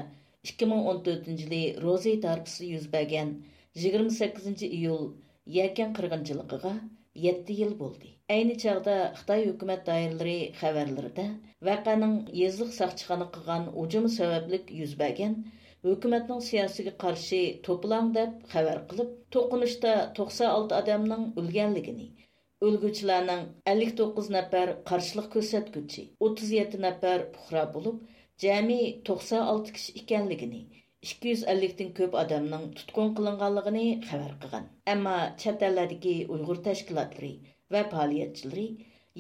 ئىككى مىڭ ئون تۆتىنچى يىلى روزى ھارپىسىدا يۈز بەرگەن يىگىرمە سەككىزىنچى ئىيۇل يەكەن قىرغىنچىلىقىغا يەتتە يىل بولدى. ئەينى چاغدا خىتاي ھۆكۈمەت دائىرىلىرى خەۋەرلىرىدە ۋەقەنىڭ يېزىلىق ساقچىخانا قىلغان ھۇجۇمى سەۋەبلىك يۈز بەرگەن، ھۆكۈمەتنىڭ سىياسىتىگە قارشى توپىلاڭ دەپ خەۋەر قىلىپ، توقۇنۇشتا توقسان ئالتە ئادەمنىڭ ئۆلگەنلىكىنى، ئۆلگۈچىلەرنىڭ ئەللىك توققۇز نەپەر قارشىلىق كۆرسەتكۈچى، ئوتتۇز يەتتە نەپەر پۇقرا بولۇپ، جەمئىي توقسان ئالتە كىشى ئىكەنلىكىنى، ئىككى يۈز ئەللىكتىن كۆپ ئادەمنىڭ تۇتقۇن قىلىنغانلىقىنى خەۋەر قىلغان. ئەمما چەت ئەللەردىكى ئۇيغۇر تەشكىلاتلىرى ۋە پائالىيەتچىلىرى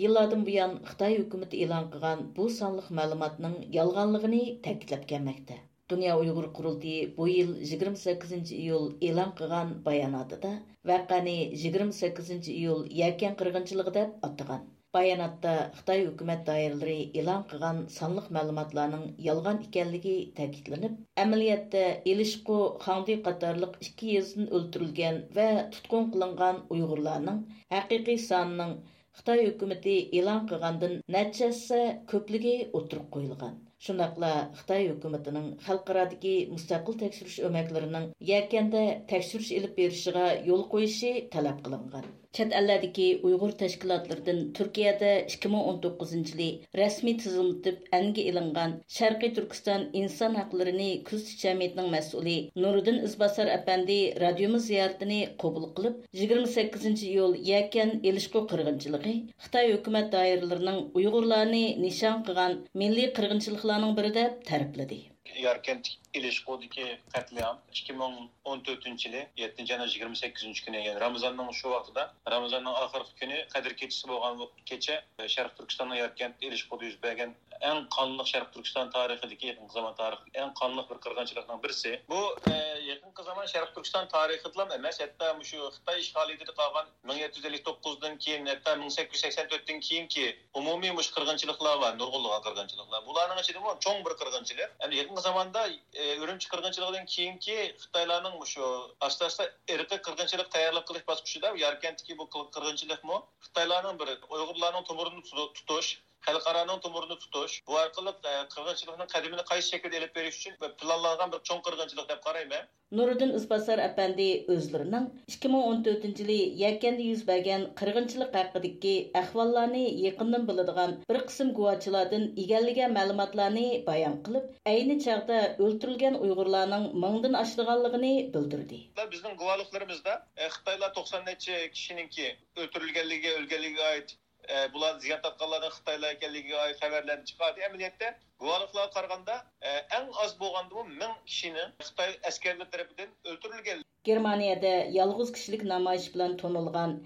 يىللاردىن بۇيان خىتاي ھۆكۈمىتى ئېلان قىلغان بۇ سانلىق مەلۇماتنىڭ يالغانلىقىنى تەكىتلەپ كەلمەكتە. دۇنيا ئۇيغۇر قۇرۇلتىيى بۇ يىل يىگىرمە سەككىزىنچى ئىيۇل ئېلان قىلغان باياناتىدا ۋەقەنى يىگىرمە سەككىزىنچى ئىيۇل يەكەن قىرغىنچىلىقى دەپ ئاتىغان. باياناتتا خىتاي ھۆكۈمەت دائىرىلىرى ئېلان قىلغان سانلىق مەلۇماتلارنىڭ يالغان ئىكەنلىكى تەكىتلىنىپ، ئەمەلىيەتتە ئېلىشقۇ، خاڭدۇي قاتارلىق ئىككى يېزىدىن ئۆلتۈرۈلگەن ۋە تۇتقۇن قىلىنغان ئۇيغۇرلارنىڭ ھەقىقىي سانىنىڭ خىتاي ھۆكۈمىتى ئېلان قىلغاندىن نەچچە ھەسسە كۆپلۈكى ئوتتۇرىغا قويۇلغان. شۇنداقلا خىتاي ھۆكۈمىتىنىڭ خەلقئارادىكى مۇستەقىل تەكشۈرۈش ئۆمەكلىرىنىڭ يەكەندە تەكشۈرۈش ئېلىپ بېرىشىغا يول قويۇشى تەلەپ قىلىنغان. چەت ئەللەردىكى ئۇيغۇر تەشكىلاتلىرىدىن تۈركىيەدە ئىككى مىڭ ئون توققۇزىنچى يىلى رەسمىي تىزىملىتىپ ئەنگە ئېلىنغان شەرقىي تۈركىستان ئىنسان ھەقلىرىنى كۆزىتىش جەمئىيىتىنىڭ مەسئۇلى نۇرىدىن ئىزباسار ئەپەندى رادىيومىز زىيارىتىنى قوبۇل قىلىپ، يىگىرمە سەككىزىنچى ئىيۇل يەكەن ئېلىشقۇ قىرغىنچىلىقى خىتاي ھۆكۈمەت دائىرىلىرىنىڭ ئۇيغۇرلارنى نىشان قىلغان مىللىي قىرغىنچىلىقلارنىڭ بىرى دەپ تەرىپلىدى. ياركەنت ئىلىشقۇدىكى قەتلىئام ئىككى مىڭ ئون تۆتىنچى يىلى يەتتىنچى ئاينىڭ يىگىرمە سەككىزىنچى كۈنى، يەنى رامىزاننىڭ شۇ ۋاقتىدا، رامىزاننىڭ ئاخىرقى كۈنى، قەدىر كېچىسى بولغان كېچە، شەرقىي تۈركىستاننىڭ ياركەنت ئىلىشقۇدا يۈز بەرگەن ئەڭ قانلىق، شەرقىي تۈركىستان تارىخىدىكى، يېقىنقى زامان تارىخىدىكى ئەڭ قانلىق بىر قىرغىنچىلىقنىڭ بىرسى. بۇ، ئە، يېقىنقى زامان شەرقىي تۈركىستان تارىخىدىلا ئەمەس، ھەتتا مۇشۇ خىتاي ئىشغالىيىتىدە قالغان مىڭ يەتتە يۈز ئەللىك توققۇزدىن كېيىن، ھەتتا مىڭ سەككىز يۈز سەكسەن تۆتتىن كېيىنكى ئومۇمىي مۇشۇ قىرغىنچىلىقلار بار، نۇرغۇنلىغان قىرغىنچىلىقلار. بۇلارنىڭ ئىچىدىمۇ چوڭ بىر قىرغىنچىلىق. ئەمدى يېقىنقى زاماندا، ئە، ئۈرۈمچى قىرغىنچىلىقىدىن كېيىنكى خىتايلارنىڭ مۇشۇ ئاستا-ئاستا ئىرقىي قىرغىنچىلىق تەييارلىق قىلىش باسقۇچىدا ياركەنتتىكى بۇ قىل-، قىرغىنچىلىقمۇ خىتايلارنىڭ بىر ئۇيغۇرلارنىڭ تومۇرىنى تۇتۇش، خەلقئارانىڭ تومۇرىنى تۇتۇش، بۇ ئارقىلىق، ئە، قىرغىنچىلىقنىڭ قەدىمىنى قايسى شەكىلدە ئېلىپ بېرىش ئۈچۈن پىلانلانغان بىر چوڭ قىرغىنچىلىق دەپ قارايمەن. نۇرىدىن ئىزباسار ئەپەندى ئۆزلىرىنىڭ ئىككى مىڭ ئون تۆتىنچى يىلى يەكەندە يۈز بەرگەن قىرغىنچىلىق ھەققىدىكى ئەھۋاللارنى يېقىندىن بىلىدىغان بىر قىسىم گۇۋاھچىلاردىن ئىگىلىگەن مەلۇماتلارنى بايان قىلىپ، ئەينى چاغدا ئۆلتۈرۈلگەن ئۇيغۇرلارنىڭ مىڭدىن ئاشىدىغانلىقىنى بىلدۈردى. بىزنىڭ گۇۋاھلىقلىرىمىزدا، ئە، خىتايلار توقسان نەچچە كىشىنىڭكى ئۆلتۈرۈلگەنلىكىگە، ئۆلگەنلىكىگە ئائىت ئە، بۇلار زىيان تارتقانلارنىڭ خىتايلار ئىكەنلىكىگە ئائىت خەۋەرلەرنى چىقاردى. ئەمەلىيەتتە، گۇۋاھلىقلارغا قارىغاندا، ئە، ئەڭ ئاز بولغاندىمۇ مىڭ كىشىنىڭ خىتاي ئەسكەرلىرى تەرىپىدىن ئۆلتۈرۈلگەن. گېرمانىيەدە يالغۇز كىشىلىك نامايىش بىلەن تونۇلغان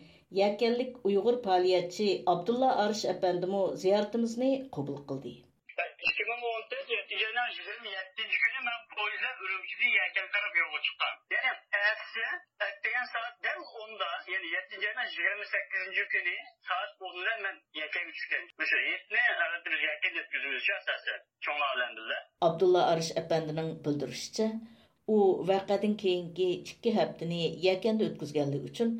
يەكەنلىك ئۇيغۇر پائالىيەتچى ئابدۇللا ئارىش ئەپەندىمۇ زىيارىتىمىزنى قوبۇل قىلدى. ئىككى مىڭ ئون تۆت يەتتىنچى ئاينىڭ يىگىرمە يەتتىنچى كۈنى مەن پويىز بىلەن ئۈرۈمچىدىن يەكەن تەرەپ يولغا چىققان. يەنى ئەتىسى ئەتىگەن سائەت دەل ئوندا، يەنى يەتتىنچى ئاينىڭ يىگىرمە سەككىزىنچى كۈنى سائەت ئون بىلەن مەن يەكەنگە چۈشكەن. مۇشۇ ھېيتنى، ئەلۋەتتە، بىز يەكەندە ئۆتكۈزىمىز ئاساسەن، چوڭلار بىلەن بىللە. ئابدۇللا ئارىش ئەپەندىنىڭ بىلدۈرۈشىچە، ئۇ ۋەقەدىن كېيىنكى ئىككى ھەپتىنى يەكەندە ئۆتكۈزگەنلىكى ئۈچۈن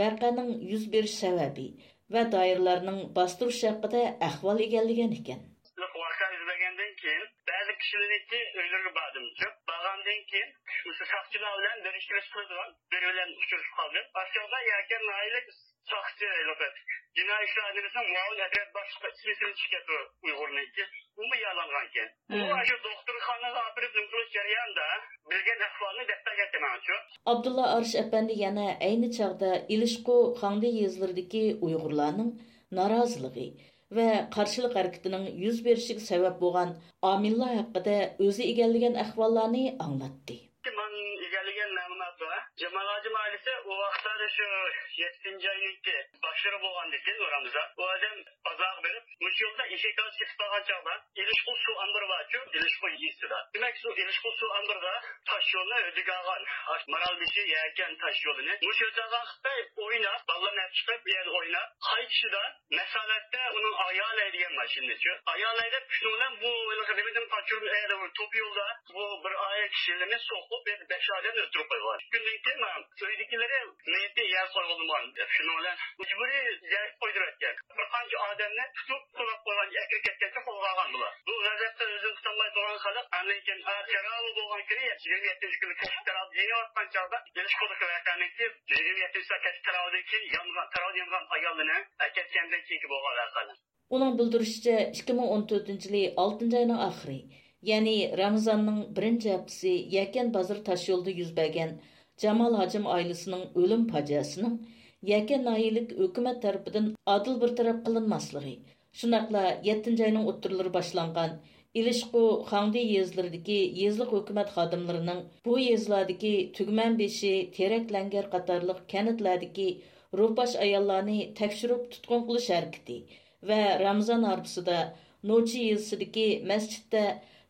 ۋەقەنىڭ يۈز بېرىش سەۋەبى ۋە دائىرىلەرنىڭ باستۇرۇش ھەققىدە ئەھۋال ئىگىلىگەن ئىكەن. ۋەقە يۈز بەرگەندىن كېيىن، بەزى كىشىلەرنىڭكى ئۆيلىرىگە باردىم. بارغاندىن كېيىن، مۇشۇ ساقچىلار بىلەن بىر ئىككىلىسى قىلىدىغان بىرى بىلەن ئۇچرىشىپ قالدىم. ئاشۇ چاغدا يەكەن ناھىيەلىك ساقچى، جىنايى ئىشلار ئىدارىسىنىڭ مۇئاۋىن ئەترەت باشلىقى ئىسمى سىنچىكەتۇ ئۇيغۇرنىڭكى. ئۇمۇ يارىلانغانكەن. ئۇ مم. ئاشۇ دوختۇرخانىغا ئاپىرىپ نېمە قىلىش جەريانىدا بىلگەن ئەھۋالنى دەپ بەرگەنتى ماڭا. ئابدۇللا ئارىش ئەپەندى يەنە ئەينى چاغدا ئىلىشقۇ، خاڭدى يېزىلىرىدىكى ئۇيغۇرلارنىڭ نارازىلىقى ۋە قارشىلىق ھەرىكىتىنىڭ يۈز بېرىشىگە سەۋەب بولغان ئامىللار ھەققىدە ئۆزى ئىگىلىگەن ئەھۋاللارنى ئاڭلاتتى. مەن ئىگىلىگەن مەلۇمات بار. جامال ھاجىم ئائىلىسى ئۇ ۋاقىتلاردا شۇ يەتتىنچى ئاينىڭكى باشلىرى بولغاندىكىن، رامىزان، ئۇ ئادەم بازارغا بېرىپ، مۇشۇ يولدا ئېشەك ئالىپ كېتىپ قالغان چاغدا، ئىلىشقۇ سۇ ئامبىرى بارچۇ، ئىلىشقۇ يېزىسىدا. دېمەك، شۇ ئىلىشقۇ سۇ ئامبىرىدا تاش يولنى ھۆددىگە ئالغان، ئاشۇ مارالبېشى، يەكەن تاش يولىنى مۇشۇ يەردە خىتاي ئويناپ، بالىلارنى ئەپ چىقىپ، بۇ يەردە ئويناپ، قايتىشىدا مەسلىھەتتە ئۇنىڭ ئايالى ھەيدىگەن ماشىنىنىچۇ. ئايالى ھەيدەپ، شۇنىڭ بىلەن بۇ ھېلىقى نېمىدىن قاچۇرۇپ، ئە، توپا يولدا بۇ بىر ئائىلە كىشىلىرىنى سوقۇپ، يەنە بەش ئادەمنى ئۆلتۈرۈپ قويغان. شۇندىن كېيىن مانا ئۆيدىكىلىرى مېيىتى يەرگە قويۇلمىغان دەپ، شۇنىڭ بىلەن مەجبۇرىي يەرگە قويدۇرۇۋەتكەن. بىر قانچە ئادەمنى تۇتۇپ، سولاپ قويغان، ئەكىرىپ كەتكەنچە قولغا ئالغان بۇلار. بۇ غەزەپتىن ئۆزىنى تۇتالماي تۇرغان خەلق ئاندىن كېيىن، ئا، تەرەۋۇھ بولغان كۈنى، يىگىرمە يەتتىنچى كۈنى كەچلىك تەرەۋۇھ يېنىۋاتقان چاغدا، ئىلىشقۇدىكى ۋەقەنىڭكى يىگىرمە يەتتىنچى سائەت كەچلىك تەرەۋۇھدىن كېيىن يانغان، تەرەۋۇھ يانغان ئايالىنى ئەكەتكەندىن كېيىنكى بولغان ۋەقەلەر. ئۇنىڭ بىلدۈرۈشىچە، ئىككى مىڭ ئون تۆتىنچى يىلى ئالتىنچى ئاينىڭ ئاخىرى، يەنى رامىزاننىڭ بىرىنچى ھەپتىسى يەكەن بازىرى تاشيولىدا يۈز بەرگەن جامال ھاجىم ئائىلىسىنىڭ ئۆلۈم پاجىئەسىنىڭ يەكەن ناھىيەلىك ھۆكۈمەت تەرىپىدىن ئادىل بىر تەرەپ قىلىنماسلىقى، شۇنداقلا يەتتىنچى ئاينىڭ ئوتتۇرىلىرى باشلانغان ئىلىشقۇ، خاڭدى يېزىلىرىدىكى يېزىلىق ھۆكۈمەت خادىملىرىنىڭ بۇ يېزىلاردىكى تۈگمەنبېشى، تېرەك لەڭگەر قاتارلىق كەنتلەردىكى روپاش ئاياللارنى تەكشۈرۈپ تۇتقۇن قىلىش ھەرىكىتى ۋە رامىزان ھارپىسىدا نوچى يېزىسىدىكى مەسچىتتە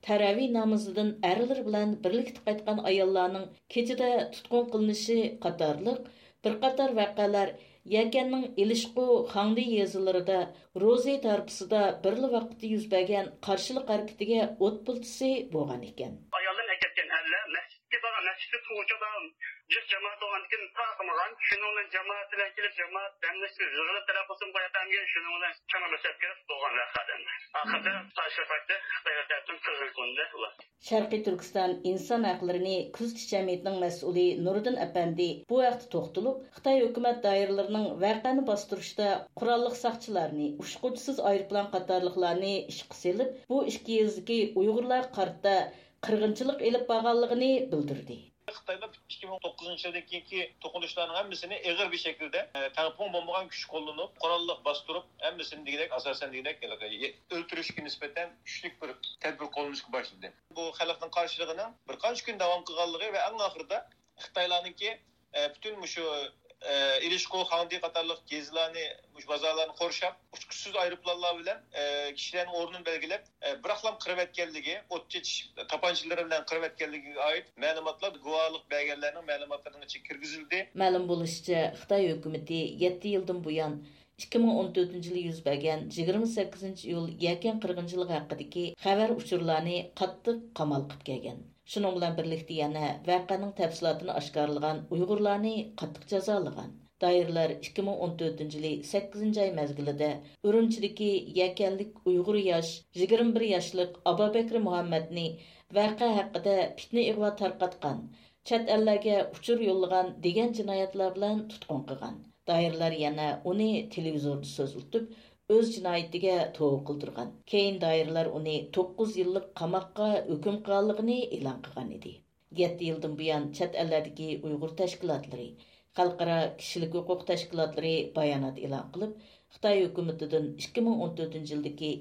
تەرەۋى نامىزىدىن ئەرلىرى بىلەن بىرلىكتە قايتقان ئاياللارنىڭ كېچىدە تۇتقۇن قىلىنىشى قاتارلىق بىر قاتار ۋەقەلەر يەكەننىڭ ئىلىشقۇ، خاڭدى يېزىلىرىدا روزى ھارپىسىدا بىرلا ۋاقىتتا يۈز بەرگەن قارشىلىق ھەرىكىتىگە ئوت پىلتىسى بولغان ئىكەن. ئاياللىرىنى ئەكەتكەن ئەرلەر مەسچىتكە بارغان، مەسچىتتە تۇرغۇچى ئادەم جىق جامائەت بولغاندىكىن تارقىمىغان. شۇنىڭ بىلەن جامائەت بىلەن كېلىپ، جامائەت ھەممىسى يىغىلىپ تەلەپ قىلسىمۇ قوياتامىكەن، شۇنىڭ بىلەن چانا باشلاپ كېلىپ بولغان ۋەقەدىن. ئاخىرىدا قارشى پارتىيە خىتايلار تەرىپىدىن قىرغىن قىلىندى ئۇلار. شەرقىي تۈركىستان ئىنسان ھەقلىرىنى كۆزىتىش جەمئىيىتىنىڭ مەسئۇلى نۇرىدىن ئەپەندى بۇ ھەقتە توختىلىپ، خىتاي ھۆكۈمەت دائىرىلىرىنىڭ ۋەقەنى باستۇرۇشتا قوراللىق ساقچىلارنى ئۇچقۇچىسىز ئايروپىلان قاتارلىقلارنى ئىشقا سېلىپ، بۇ ئىككى يېزىدىكى ئۇيغۇرلارغا قارىتا قىرغىنچىلىق ئېلىپ بارغانلىقىنى بىلدۈردى. خىتايلار ئىككى مىڭ توققۇزىنچى يىلدىن كېيىنكى توقۇنۇشلارنىڭ ھەممىسىنى ئېغىر بىر شەكىلدە، ئە، تەڭپۇڭ بولمىغان كۈچ قوللىنىپ، قوراللىق باستۇرۇپ، ھەممىسىنى دېگۈدەك، ئاساسەن دېگۈدەك، ئۆلتۈرۈشكە نىسبەتەن كۈچلۈك بىر تەدبىر قوللىنىشقا باشلىدى. بۇ خەلقنىڭ قارشىلىقىنىڭ بىر قانچە كۈن داۋام قىلغانلىقى ۋە ئەڭ ئاخىرىدا خىتايلارنىڭكى، ئە، پۈتۈن مۇشۇ، ئە، ئىلىشقۇ، خاڭدى قاتارلىق يېزىلارنى، مۇشۇ بازارلارنى قورشاپ، ئۇچقۇچىسىز ئايروپىلانلار بىلەن، ئە، كىشىلەرنىڭ ئورنىنى بەلگىلەپ، ئە، بىراقلام قىرىۋەتكەنلىكى، ئوت چېچىش تاپانچىلىرى بىلەن قىرىۋەتكەنلىكىگە ئائىت مەلۇماتلار گۇۋاھلىق بەرگەنلەرنىڭ مەلۇماتلىرىنىڭ ئىچىگە كىرگۈزۈلدى. مەلۇم بولۇشىچە، خىتاي ھۆكۈمىتى يەتتە يىلدىن بۇيان، ئىككى مىڭ ئون تۆتىنچى يىلى يۈز بەرگەن يىگىرمە سەككىزىنچى ئىيۇل يەكەن قىرغىنچىلىقى ھەققىدىكى خەۋەر ئۇچۇرلارنى قاتتىق قامال قىلىپ كەلگەن. شۇنىڭ بىلەن بىرلىكتە يەنە ۋەقەنىڭ تەپسىلاتىنى ئاشكارىلىغان ئۇيغۇرلارنى قاتتىق جازالىغان. دائىرىلەر ئىككى مىڭ ئون تۆتىنچى يىلى سەككىزىنچى ئاي مەزگىلىدە ئۈرۈمچىدىكى يەكەنلىك ئۇيغۇر ياش يىگىرمە بىر ياشلىق ئابابەكرى مۇھەممەدنى ۋەقە ھەققىدە پىتنە ئىغۋا تارقاتقان، چەت ئەللەرگە ئۇچۇر يوللىغان دېگەن جىنايەتلەر بىلەن تۇتقۇن قىلغان. دائىرىلەر يەنە ئۇنى تېلېۋىزوردا سۆزلىتىپ، ئۆز جىنايىتىگە توۋا قىلدۇرغان. كېيىن دائىرىلەر ئۇنى توققۇز يىللىق قاماققا ھۆكۈم قىلغانلىقىنى ئېلان قىلغان ئىدى. يەتتە يىلدىن بۇيان چەت ئەللەردىكى ئۇيغۇر تەشكىلاتلىرى، خەلقئارا كىشىلىك ھوقۇق تەشكىلاتلىرى بايانات ئېلان قىلىپ، خىتاي ھۆكۈمىتىدىن ئىككى مىڭ ئون تۆتىنچى يىلدىكى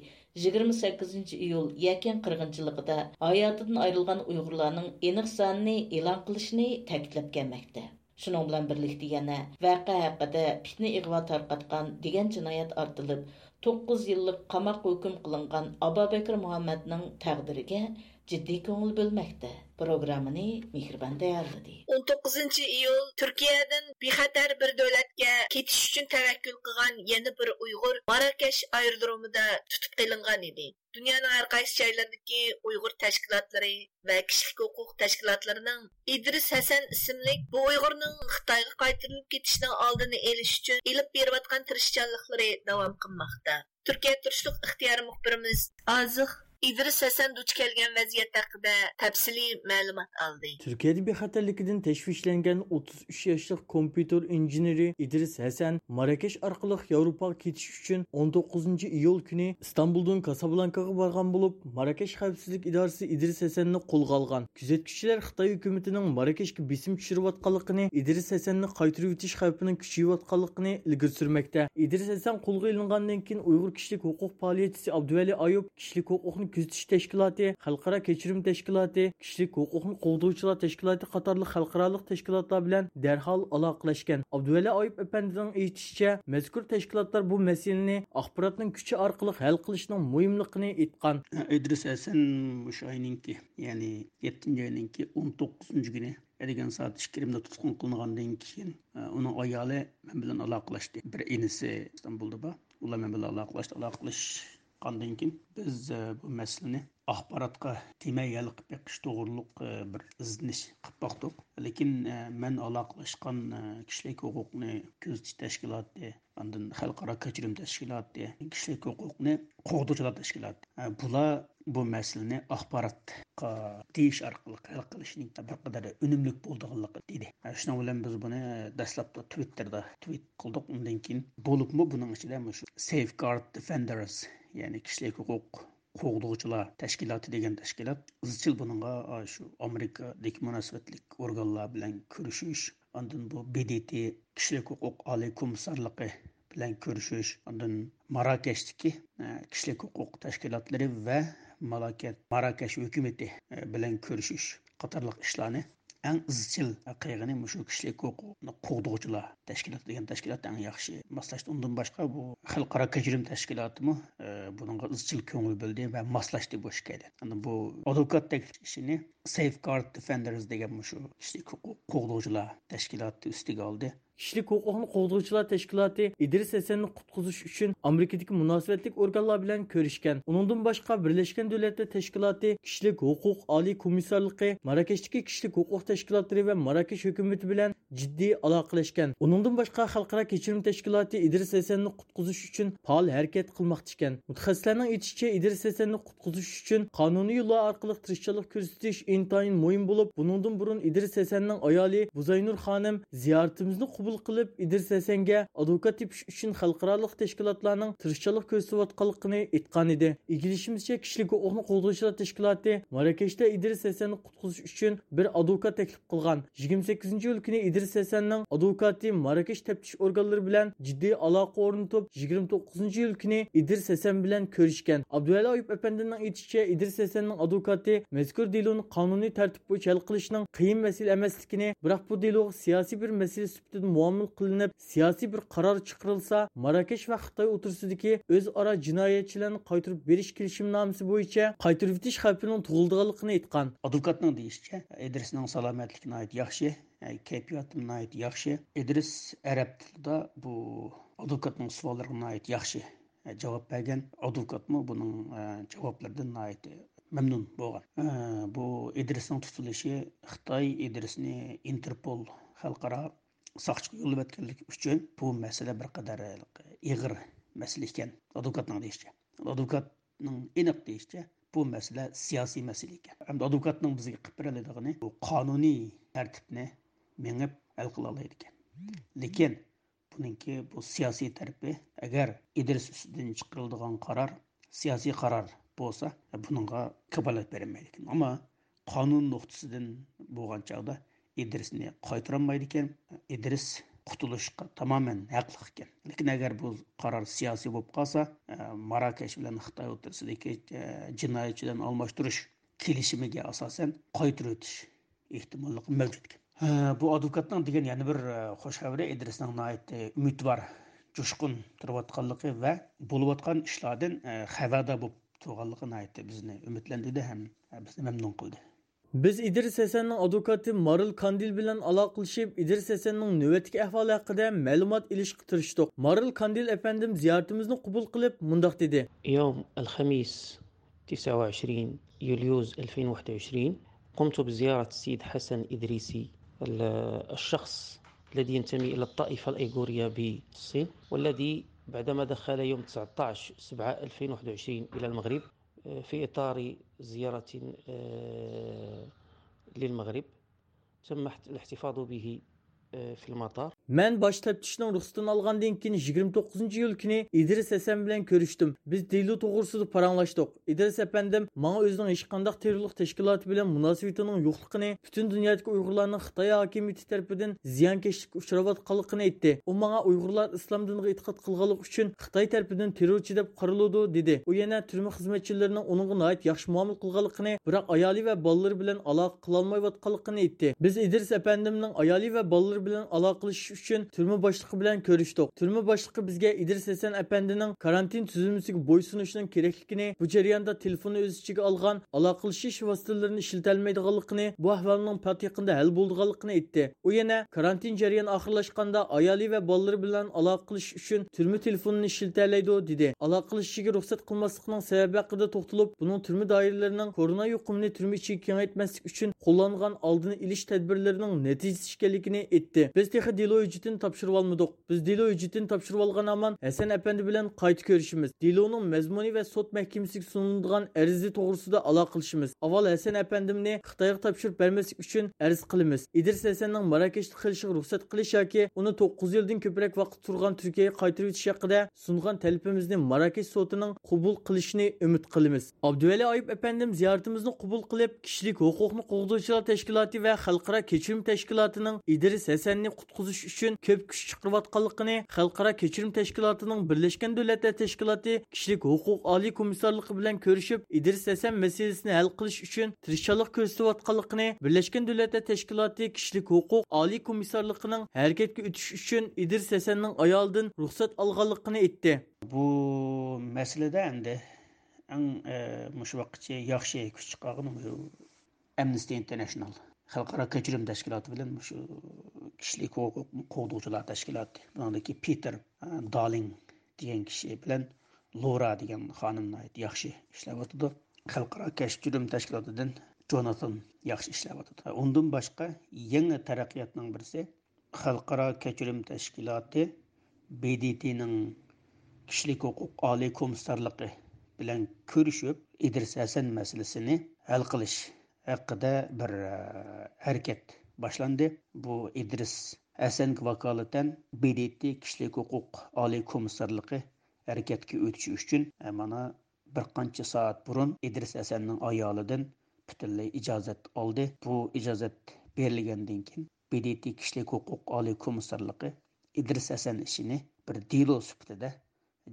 يىگىرمە سەككىزىنچى ئىيۇل يەكەن قىرغىنچىلىقىدا ھاياتىدىن ئايرىلغان ئۇيغۇرلارنىڭ ئېنىق سانىنى ئېلان قىلىشىنى تەكىتلەپ كەلمەكتە. شۇنىڭ بىلەن بىرلىكتە يەنە ۋەقە ھەققىدە پىتنە ئىغۋا تارقاتقان دېگەن جىنايەت ئارتىلىپ، توققۇز يىللىق قاماققا ھۆكۈم قىلىنغان ئابابەكرى مۇھەممەدنىڭ تەقدىرىگە جىددىي كۆڭۈل بۆلمەكتە. پروگراممىنى مېھرىبان تەييارلىدى. ئون توققۇزىنچى ئىيۇل تۈركىيەدىن بىخەتەر بىر دۆلەتكە كېتىش ئۈچۈن تەۋەككۈل قىلغان يەنە بىر ئۇيغۇر ماراكەش ئايرودرومىدا تۇتۇپ قېلىنغان ئىدى. دۇنيانىڭ ھەر قايسى جايلىرىدىكى ئۇيغۇر تەشكىلاتلىرى ۋە كىشىلىك ھوقۇق تەشكىلاتلىرىنىڭ ئىدرىس ھەسەن ئىسىملىك بۇ ئۇيغۇرنىڭ خىتايغا قايتۇرۇلۇپ كېتىشىنىڭ ئالدىنى ئېلىش ئۈچۈن ئېلىپ بېرىۋاتقان تىرىشچانلىقلىرى داۋام قىلماقتا. تۈركىيە تۇرۇشلۇق ئىختىيارىي مۇخبىرىمىز ئازىق ئىدرىس ھەسەن دۇچ كەلگەن ۋەزىيەت ھەققىدە تەپسىلىي مەلۇمات ئالدى. تۈركىيەدە بىخەتەرلىكىدىن تەشۋىشلەنگەن ئوتتۇز ئۈچ ياشلىق كومپيۇتېر ئىنژېنېرى ئىدرىس ھەسەن ماراكەش ئارقىلىق ياۋروپاغا كېتىش ئۈچۈن ئون توققۇزىنچى ئىيۇل كۈنى ئىستانبۇلدىن كاسابلانكاغا بارغان بولۇپ، ماراكەش خەۋپسىزلىك ئىدارىسى ئىدرىس ھەسەننى قولغا ئالغان. كۆزەتكۈچىلەر خىتاي ھۆكۈمىتىنىڭ ماراكەشكە بېسىم چۈشۈرۈۋاتقانلىقىنى، ئىدرىس ھەسەننى قايتۇرۇۋېتىش خەۋپىنىڭ كۈچىيىۋاتقانلىقىنى ئىلگىرى سۈرمەكتە. ئىدرىس ھەسەن قولغا ئېلىنغاندىن كېيىن، ئۇيغۇر كىشىلىك ھوقۇق پائالىيەتچىسى ئابدۇۋەلى ئايۇپ كىشىلىك ھوقۇقنى كۆزىتىش تەشكىلاتى، خەلقئارا كەچۈرۈم تەشكىلاتى، كىشىلىك ھوقۇقنى قوغدىغۇچىلار تەشكىلاتى قاتارلىق خەلقئارالىق تەشكىلاتلار بىلەن دەرھال ئالاقىلەشكەن. ئابدۇۋەلى ئايۇپ ئەپەندىنىڭ ئېيتىشىچە، مەزكۇر تەشكىلاتلار بۇ مەسىلىنى ئاخباراتنىڭ كۈچى ئارقىلىق ھەل قىلىشنىڭ مۇھىملىقىنى ئېيتقان. ئىدرىس ھەسەن مۇشۇ ئاينىڭكى، يەنى يەتتىنچى ئاينىڭكى ئون توققۇزىنچى كۈنى ئەتىگەن سائەت ئىككى يېرىمدە تۇتقۇن قىلىنغاندىن كېيىن، ئۇنىڭ ئايالى مەن بىلەن ئالاقىلەشتى. بىر ئىنىسى ئىستانبۇلدا بار. ئۇلار مەن بىلەن ئالاقىلەشتى. ئالاقىلەشكەندىن كېيىن بىز، بۇ مەسىلىنى ئاخباراتقا دېمەي ھەل قىلىپ بېقىش توغرۇلۇق، بىر ئىزدىنىش قىلىپ باقتۇق. لېكىن، مەن ئالاقىلەشكەن، كىشىلىك ھوقۇقنى كۆزىتىش تەشكىلاتى، ئاندىن خەلقئارا كەچۈرۈم تەشكىلاتى، كىشىلىك ھوقۇقنى قوغدىغۇچىلار تەشكىلاتى. ھە، بۇلار بۇ مەسىلىنى ئاخباراتقا دېيىش ئارقىلىق ھەل قىلىشنىڭ بىر قەدەر ئۈنۈملۈك بولىدىغانلىقى دېدى. ھە، شۇنىڭ بىلەن بىز بۇنى دەسلەپتە تىۋىتتېردا تىۋىت قىلدۇق. ئۇندىن كېيىن بولۇپمۇ بۇنىڭ ئىچىدە مۇشۇ سەيفگارد دىفېندەرس، يەنى كىشىلىك ھوقۇق قوغدىغۇچىلار تەشكىلاتى دېگەن تەشكىلات ئىزچىل بۇنىڭغا، ئا، شۇ ئامېرىكىدىكى مۇناسىۋەتلىك ئورگانلار بىلەن كۆرۈشۈش، ئاندىن بۇ ب د ت كىشىلىك ھوقۇق ئالىي كومىسسارلىقى بىلەن كۆرۈشۈش، ئاندىن ماراكەشتىكى، ئە، كىشىلىك ھوقۇق تەشكىلاتلىرى ۋە مالاكەت-، ماراكەش ھۆكۈمىتى، ئە، بىلەن كۆرۈشۈش قاتارلىق ئىشلارنى ئەڭ ئىزچىل قىلغىنى مۇشۇ كىشىلىك ھوقۇقنى قوغدىغۇچىلار تەشكىلاتى دېگەن تەشكىلات ئەڭ ياخشى ماسلاشتى. ئۇندىن باشقا بۇ خەلقئارا كەچۈرۈم تەشكىلاتىمۇ، ئە، بۇنىڭغا ئىزچىل كۆڭۈل بۆلدى ۋە ماسلاشتى بۇ ئىككىيلەن. ئاندىن بۇ ئادۋوكات تەكلىپ ئىشىنى سەيفگارد دىفېندەرس دېگەن مۇشۇ كىشىلىك ھوقۇق قوغدىغۇچىلار تەشكىلاتى ئۈستىگە ئالدى. كىشىلىك ھوقۇقنى قوغدىغۇچىلار تەشكىلاتى ئىدرىس ھەسەننى قۇتقۇزۇش ئۈچۈن ئامېرىكىدىكى مۇناسىۋەتلىك ئورگانلار بىلەن كۆرۈشكەن. ئۇنىڭدىن باشقا، بىرلەشكەن دۆلەتلەر تەشكىلاتى كىشىلىك ھوقۇق ئالىي كومىسسارلىقى، ماراكەشتىكى كىشىلىك ھوقۇق تەشكىلاتلىرى ۋە ماراكەش ھۆكۈمىتى بىلەن جىددىي ئالاقىلەشكەن. ئۇنىڭدىن باشقا، خەلقئارا كەچۈرۈم تەشكىلاتى ئىدرىس ھەسەننى قۇتقۇزۇش ئۈچۈن پائال ھەرىكەت قىلماقتا ئىكەن. مۇتەخەسسىسلەرنىڭ ئېيتىشىچە، ئىدرىس ھەسەننى قۇتقۇزۇش ئۈچۈن قانۇنىي يوللار ئارقىلىق تىرىشچانلىق كۆرسىتىش ئىنتايىن مۇھىم بولۇپ، بۇنىڭدىن بۇرۇن ئىدرىس ھەسەننىڭ ئايالى بۇزاينۇر خانىم زىيارىتىمىزنى قوبۇل قىلىپ، ئىدرىس ھەسەنگە ئادۋوكات تېپىش ئۈچۈن خەلقئارالىق تەشكىلاتلارنىڭ تىرىشچانلىق كۆرسىتىۋاتقانلىقىنى ئېيتقانىدى. ئىگىلىشىمىزچە، كىشىلىك ھوقۇقنى قوغدىغۇچىلار تەشكىلاتى ماراكەشتە ئىدرىس ھەسەننى قۇتقۇزۇش ئۈچۈن بىر ئادۋوكات تەكلىپ قىلغان. يىگىرمە سەككىزىنچى ئىيۇل كۈنى ئىدرىس ھەسەننىڭ ئادۋوكاتى ماراكەش تەپتىش ئورگانلىرى بىلەن جىددىي ئالاقە ئورنىتىپ، يىگىرمە توققۇزىنچى ئىيۇل كۈنى ئىدرىس ھەسەن بىلەن كۆرۈشكەن. ئابدۇۋەلى ئايۇپ ئەپەندىمنىڭ ئېيتىشىچە، ئىدرىس ھەسەننىڭ ئادۋوكاتى مەزكۇر دېلونى قانۇنىي تەرتىپ بويىچە ھەل قىلىشنىڭ قىيىن مەسىلە ئەمەسلىكىنى، بىراق بۇ دېلوغا سىياسىي بىر مەسىلە سۈپىتىدە مۇئامىلە قىلىنىپ، سىياسىي بىر قارار چىقىرىلسا، ماراكەش ۋە خىتاي ئوتتۇرىسىدىكى ئۆزئارا جىنايەتچىلەرنى قايتۇرۇپ بېرىش كېلىشىمنامىسى بويىچە قايتۇرۇۋېتىش خەۋپىنىڭ تۇغۇلىدىغانلىقىنى ئېيتقان. ئادۋوكاتنىڭ دېيىشىچە، ئىدرىسنىڭ سالامەتلىكى ناھايىتى ياخشى، كەيپىياتىمۇ ناھايىتى ياخشى. ئىدرىس ئەرەب تىلىدا بۇ ئادۋوكاتنىڭ سوئاللىرىغا ناھايىتى ياخشى جاۋاب بەرگەن. ئادۋوكاتمۇ بۇنىڭ جاۋابلىرىدىن ناھايىتى مەمنۇن بولغان. بۇ ئىدرىسنىڭ تۇتۇلۇشى، خىتاي ئىدرىسنى ئىنتېرپول خەلقئارا ساقچىغا يوللىۋەتكەنلىكى ئۈچۈن بۇ مەسىلە بىر قەدەر ئېغىر مەسىلە ئىكەن، ئادۋوكاتنىڭ دېيىشىچە. ئادۋوكاتنىڭ ئېنىق دېيىشىچە، بۇ مەسىلە سىياسىي مەسىلە ئىكەن. ئەمدى ئادۋوكاتنىڭ بىزگە قىلىپ بېرەلەيدىغىنى بۇ قانۇنىي تەرتىپنى مېڭىپ ھەل قىلالايدىكەن. لېكىن بۇنىڭكى بۇ سىياسىي تەرىپى، ئەگەر ئىدرىس ئۈستىدىن چىقىرىلىدىغان قارار سىياسىي قارار بولسا، بۇنىڭغا كاپالەت بېرەلمەيدىكەن. ئەمما قانۇن نۇقتىسىدىن بولغان چاغدا ئىدرىسنى قايتۇرالمايدىكەن. ئىدرىس قۇتۇلۇشقا تامامەن ھەقلىق ئىكەن. لېكىن ئەگەر بۇ قارار سىياسىي بولۇپ قالسا، ماراكەش بىلەن خىتاي ئوتتۇرىسىدىكى جىنايەتچىلەرنى ئالماشتۇرۇش كېلىشىمىگە ئاساسەن قايتۇرۇۋېتىش ئېھتىماللىقى مەۋجۇت ئىكەن. ھە، بۇ ئادۋوكاتنىڭ دېگەن يەنە بىر، ئە، خۇش خەۋىرى ئىدرىسنىڭ ناھايىتى ئۈمىدۋار، جۇشقۇن تۇرۇۋاتقانلىقى ۋە بولۇۋاتقان ئىشلاردىن، ئە، خەۋەردار بولۇپ تۇرغانلىقى ناھايىتى بىزنى ئۈمىدلەندۈردى ھەم، ئە، بىزنى مەمنۇن قىلدى. بىز ئىدرىس ھەسەننىڭ ئادۋوكاتى مارىل كاندىل بىلەن ئالاقىلىشىپ، ئىدرىس ھەسەننىڭ نۆۋەتتىكى ئەھۋالى ھەققىدە مەلۇمات ئېلىشقا تىرىشتۇق. مارىل كاندىل ئەپەندىم زىيارىتىمىزنى قوبۇل قىلىپ، مۇنداق دېدى. يوم الخميس، تسعة وعشرين يوليوز ألفين وواحد وعشرين، قمت بزيارة السيد حسن إدريسي، ال-، الشخص الذي ينتمي إلى الطائفة الأيغورية بالصين، والذي بعدما دخل يوم تسعتاش سبعة ألفين وواحد وعشرين إلى المغرب، آه، في إطار زيارة، آه، للمغرب، تم احت-، الاحتفاظ به، آه، في المطار. مەن باش تەپتىشنىڭ رۇخسىتىنى ئالغاندىن كېيىن، يىگىرمە توققۇزىنچى ئىيۇل كۈنى ئىدرىس ھەسەن بىلەن كۆرۈشتۈم. بىز دېلو توغرىسىدا پاراڭلاشتۇق. ئىدرىس ئەپەندىم ماڭا ئۆزىنىڭ ھېچقانداق تېررورلۇق تەشكىلاتى بىلەن مۇناسىۋىتىنىڭ يوقلۇقىنى، پۈتۈن دۇنيادىكى ئۇيغۇرلارنىڭ خىتاي ھاكىمىيىتى تەرىپىدىن زىيانكەشلىككە ئۇچراۋاتقانلىقىنى ئېيتتى. ئۇ ماڭا ئۇيغۇرلار ئىسلام دىنىغا ئېتىقاد قىلغانلىقى ئۈچۈن خىتاي تەرىپىدىن تېررورچى دەپ قارىلىدۇ، دېدى. ئۇ يەنە تۈرمە خىزمەتچىلىرىنىڭ ئۇنىڭغا ناھايىتى ياخشى مۇئامىلە قىلغانلىقىنى، بىراق ئايالى ۋە بالىلىرى بىلەن ئالاقە قىلالمايۋاتقانلىقىنى ئېيتتى. بىز ئىدرىس ئەپەندىمنىڭ ئايالى ۋە بالىلىرى بىلەن ئالاقىلىشىش ئۈچۈن تۈرمە باشلىقى بىلەن كۆرۈشتۇق. تۈرمە باشلىقى بىزگە ئىدرىس ھەسەن ئەپەندىنىڭ كارانتىن تۈزۈلمىسىگە بويسۇنۇشنىڭ كېرەكلىكىنى، بۇ جەرياندا تېلېفوننى ئۆز ئىچىگە ئالغان ئالاقىلىشىش ۋاسىتىلىرىنى ئىشلىتەلمەيدىغانلىقىنى، بۇ ئەھۋالنىڭ پات يېقىندا ھەل بولىدىغانلىقىنى ئېيتتى. ئۇ يەنە كارانتىن جەريانى ئاخىرلاشقاندا ئايالى ۋە بالىلىرى بىلەن ئالاقە قىلىش ئۈچۈن تۈرمە تېلېفونىنى ئىشلىتەلەيدۇ، دېدى. ئالاقىلىشىشىگە رۇخسەت قىلماسلىقنىڭ سەۋەبى ھەققىدە توختىلىپ، بۇنىڭ تۈرمە دائىرىلىرىنىڭ كورونا يۇقۇمىنى تۈرمە ئىچىگە كېڭەيتمەسلىك ئۈچۈن قوللانغان ئالدىنى ئېلىش تەدبىرلىرىنىڭ نەتىجىسى ئىكەنلىكىنى ئېيتتى. بىز تېخى دېلو ھۆججىتىنى تاپشۇرۇۋالمىدۇق. بىز دېلو ھۆججىتىنى تاپشۇرۇۋالغان ھامان ھەسەن ئەپەندى بىلەن قايتا كۆرۈشىمىز. دېلونىڭ مەزمۇنى ۋە سوت مەھكىمىسىگە سۇنۇلىدىغان ئەرزى توغرىسىدا ئالاقىلىشىمىز. ئاۋۋال ھەسەن ئەپەندىمنى خىتايغا تاپشۇرۇپ بەرمەسلىك ئۈچۈن ئەرز قىلىمىز. ئىدرىس ھەسەننىڭ ماراكەشتە قېلىشىغا رۇخسەت قىلىش ياكى ئۇنى توققۇز يىلدىن كۆپرەك ۋاقىت تۇرغان تۈركىيەگە قايتۇرۇۋېتىش ھەققىدە سۇنغان تەلىپىمىزنى ماراكەش سوتىنىڭ قوبۇل قىلىشىنى ئۈمىد قىلىمىز. ئابدۇۋەلى ئايۇپ ئەپەندىم زىيارىتىمىزنى قوبۇل قىلىپ، كىشىلىك ھوقۇقنى قوغدىغۇچىلار تەشكىلاتى ۋە خەلقئارا كەچۈرۈم تەشكىلاتىنىڭ ئىدرىس ھەسەننى قۇتقۇزۇش ئۈچۈن كۆپ كۈچ چىقىرىۋاتقانلىقىنى، خەلقئارا كەچۈرۈم تەشكىلاتىنىڭ بىرلەشكەن دۆلەتلەر تەشكىلاتى كىشىلىك ھوقۇق ئالىي كومىسسارلىقى بىلەن كۆرۈشۈپ، ئىدرىس ھەسەن مەسىلىسىنى ھەل قىلىش ئۈچۈن تىرىشچانلىق كۆرسىتىۋاتقانلىقىنى، بىرلەشكەن دۆلەتلەر تەشكىلاتى كىشىلىك ھوقۇق ئالىي كومىسسارلىقىنىڭ ھەرىكەتكە ئۆتۈش ئۈچۈن ئىدرىس ھەسەننىڭ ئايالىدىن رۇخسەت ئالغانلىقىنى ئېيتتى. بۇ مەسىلىدە ئەمدى ئەڭ، ئە، مۇشۇ ۋاقىتقىچە ياخشى كۈچ چىقارغىنى مۇشۇ ئەمنىستى ئىنتېرناشنال، خەلقئارا كەچۈرۈم تەشكىلاتى بىلەن مۇشۇ كىشىلىك ھوقۇق قوغدىغۇچىلار تەشكىلاتى، بۇنىڭدىكى پىتېر، ئە، دالىڭ دېگەن كىشى بىلەن لورا دېگەن خانىم ناھايىتى ياخشى ئىشلەۋاتىدۇ. خەلقئارا كەچۈرۈم تەشكىلاتىدىن جوناتان ياخشى ئىشلەۋاتىدۇ. ئۇندىن باشقا يېڭى تەرەققىياتنىڭ بىرسى، خەلقئارا كەچۈرۈم تەشكىلاتى، ب د ت نىڭ كىشىلىك ھوقۇق ئالىي كومىسسارلىقى بىلەن كۆرۈشۈپ، ئىدرىس ھەسەن مەسىلىسىنى ھەل قىلىش ھەققىدە بىر، ئە، ھەرىكەت باشلاندى. بۇ ئىدرىس ھەسەنگە ۋاكالىتەن ب د ت كىشىلىك ھوقۇق ئالىي كومىسسارلىقى ھەرىكەتكە ئۆتۈش ئۈچۈن، ئە، مانا، بىر قانچە سائەت بۇرۇن ئىدرىس ھەسەننىڭ ئايالىدىن پۈتۈنلەي ئىجازەت ئالدى. بۇ ئىجازەت بېرىلگەندىن كېيىن، ب د ت كىشىلىك ھوقۇق ئالىي كومىسسارلىقى ئىدرىس ھەسەن ئىشىنى بىر دېلو سۈپىتىدە